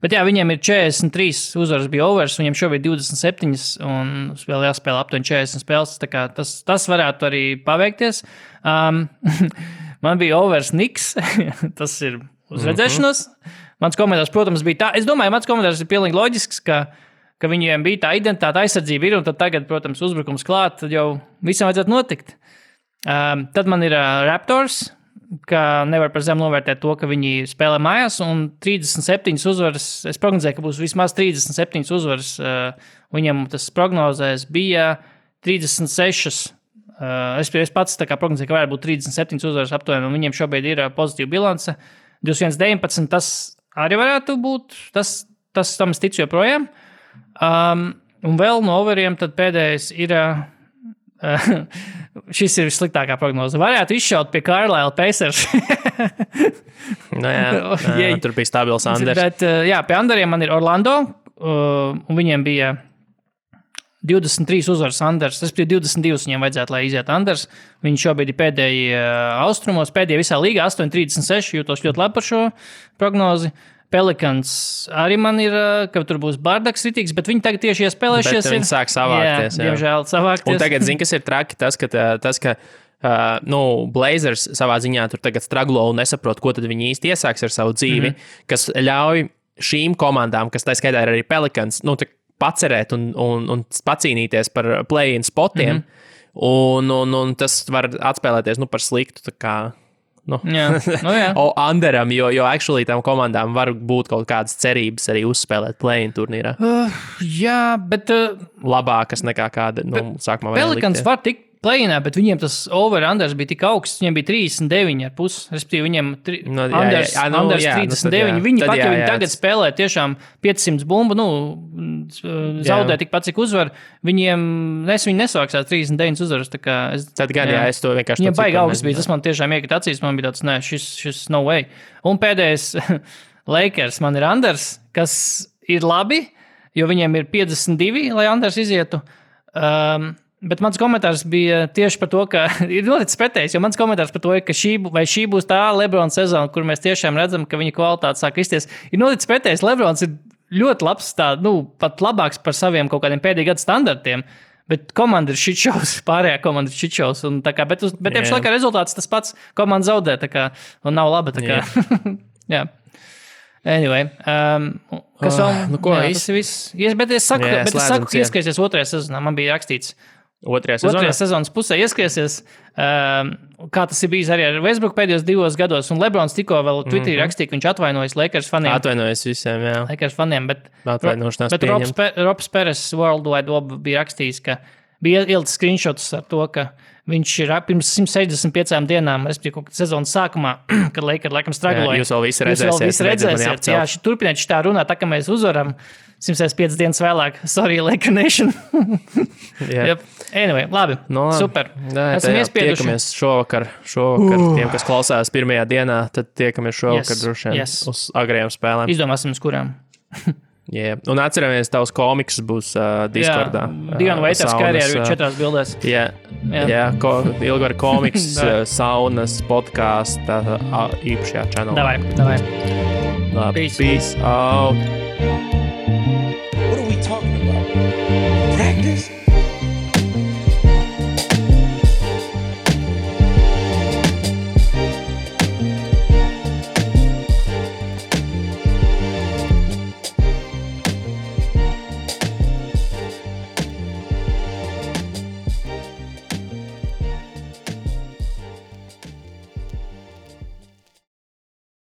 Bet viņiem ir 43 uzvaras bija overs, viņiem šobrīd 27 un vēl jāspēlē aptuveni 40 spēles, tā kā tas varētu arī paveikties. Man bija overs Knicks, tas ir uz redzēšanos. Mans komentārs, protams, bija tā. Es domāju, mans komentārs ir pilnīgi loģisks, ka viņiem bija tā identitāte, aizsardzība ir, un tad tagad, protams, uzbrukums klāt, tad jau visam vajadzētu notikt. Tad man ir Raptors, ka nevar par zem novērtēt to, ka viņi spēlē mājās, un 37 uzvaras, es prognozēju, ka būs vismaz 37 uzvaras, viņam tas prognozēs bija 36. Es pats tā kā prognozēju, ka varētu būt 37 uzvaras aptuveni, un viņiem šobrīd ir pozitīva bilance. 21-19, tas arī varētu būt, tas tam es ticu joprojām. Un vēl no overiem tad pēdējais ir, šis ir vissliktākā prognoze. Varētu izšaut pie Carlisle Pacers. Tur bija stabils Anders. Bet pie Anderiem man ir Orlando, un viņiem bija 23 uzvaras Anders. Tas bija 22 viņiem vajadzētu, lai iziet Anders. Viņi šobrīd ir pēdēji austrumos, pēdējie visā līgā 8-36, jūtos ļoti labi par šo prognozi. Pelicans arī man ir, ka tur būs bardaks ritīgs, bet viņi tagad tieši iespēlēšies. Bet viņi sāk savākties. Jā, diemžēl savākties. Un tagad, kas ir traki, tas, ka Blazers savā ziņā tur tagad straglo un nesaprot, ko tad viņi īsti iesāks ar savu dzīvi, kas ļauj šīm komandām, kas tā skaitā ir arī Pelicans, pacerēt un pacīnīties par play-in spotiem, un tas var atspēlēties par sliktu, tā kā underam, jo actually tam komandām var būt kaut kādas cerības arī uzspēlēt play-in turnīrā. Jā, bet labākas nekā kāda, sākumā vajag Pelicans var tikt play-inā, bet viņiem tas over-unders bija tik augsts, viņiem bija 39,5, respektīvi viņiem unders 39. Viņi pat, ja viņi tagad spēlē tiešām 500 bumbu, zaudē tikpat, cik uzvar, viņi nesāksās 39 uzvaras, tā kā tad gan, es to vienkārši viņiem baigi augsts bija, tas man tiešām iekrita acīs, man bija tāds, šis no way. Un pēdējais Lakers man ir unders, kas ir labi, jo viņiem ir 52, lai unders izietu. Bet mans komentārs bija tieši par to, ka ir noticis pretējs, jo mans komentārs par to ir, ka šī būs tā LeBron sezona, kur mēs tiešām redzam, ka viņa kvalitāte sāk kristies. Ir noticis pretējs, LeBrons ir ļoti labs, pat labāks par saviem kaut kādiem pēdējā gada standartiem, bet komanda ir shitshows, pārējā komanda ir shitshows. Bet tieši laikā rezultāts tas pats, komanda zaudē, un nav laba. Jā. Anyway, kas vēl? Tas ir viss. Bet es saku, ka ieskaisies otrajā sezonā, man bija rakstīts. Otrajā sezonas pusē ieskaisies, kā tas ir bijis arī ar Westbrook pēdējos 2 gados, un LeBrons tikko vēl Twitterī rakstīja, ka viņš atvainojas Lakers faniem. Atvainojas visiem, jā. Lakers faniem, bet pieņemt. Robs Peres World Wide Web bija rakstījis, ka bija ielicis screenshots ar to, ka viņš ir pirms 165 dienām, respektīvi, kaut kad sezonas sākumā, kad Lakers laikam stragloja. Jūs vēl visi redzēsiet. Jā, turpiniet tā runāt, tā kā mēs uzvaram 165 dienas vēlāk. Sorry, Laker Nation. Yep. Anyway, labi, super. Esam iespieduši. Tiekamies šovakar tiem, kas klausās pirmajā dienā, tad tiekamies šovakar droši vien uz agrējām spēlēm. Izdomāsim, uz kurām. Yeah. Un atceramies, tavs komiks būs Discordā. Diana Waiters karjeru 4 bildēs. Ilgar komiks, saunas, podkāsta, īpašajā channelā. Davai. Labi, peace out.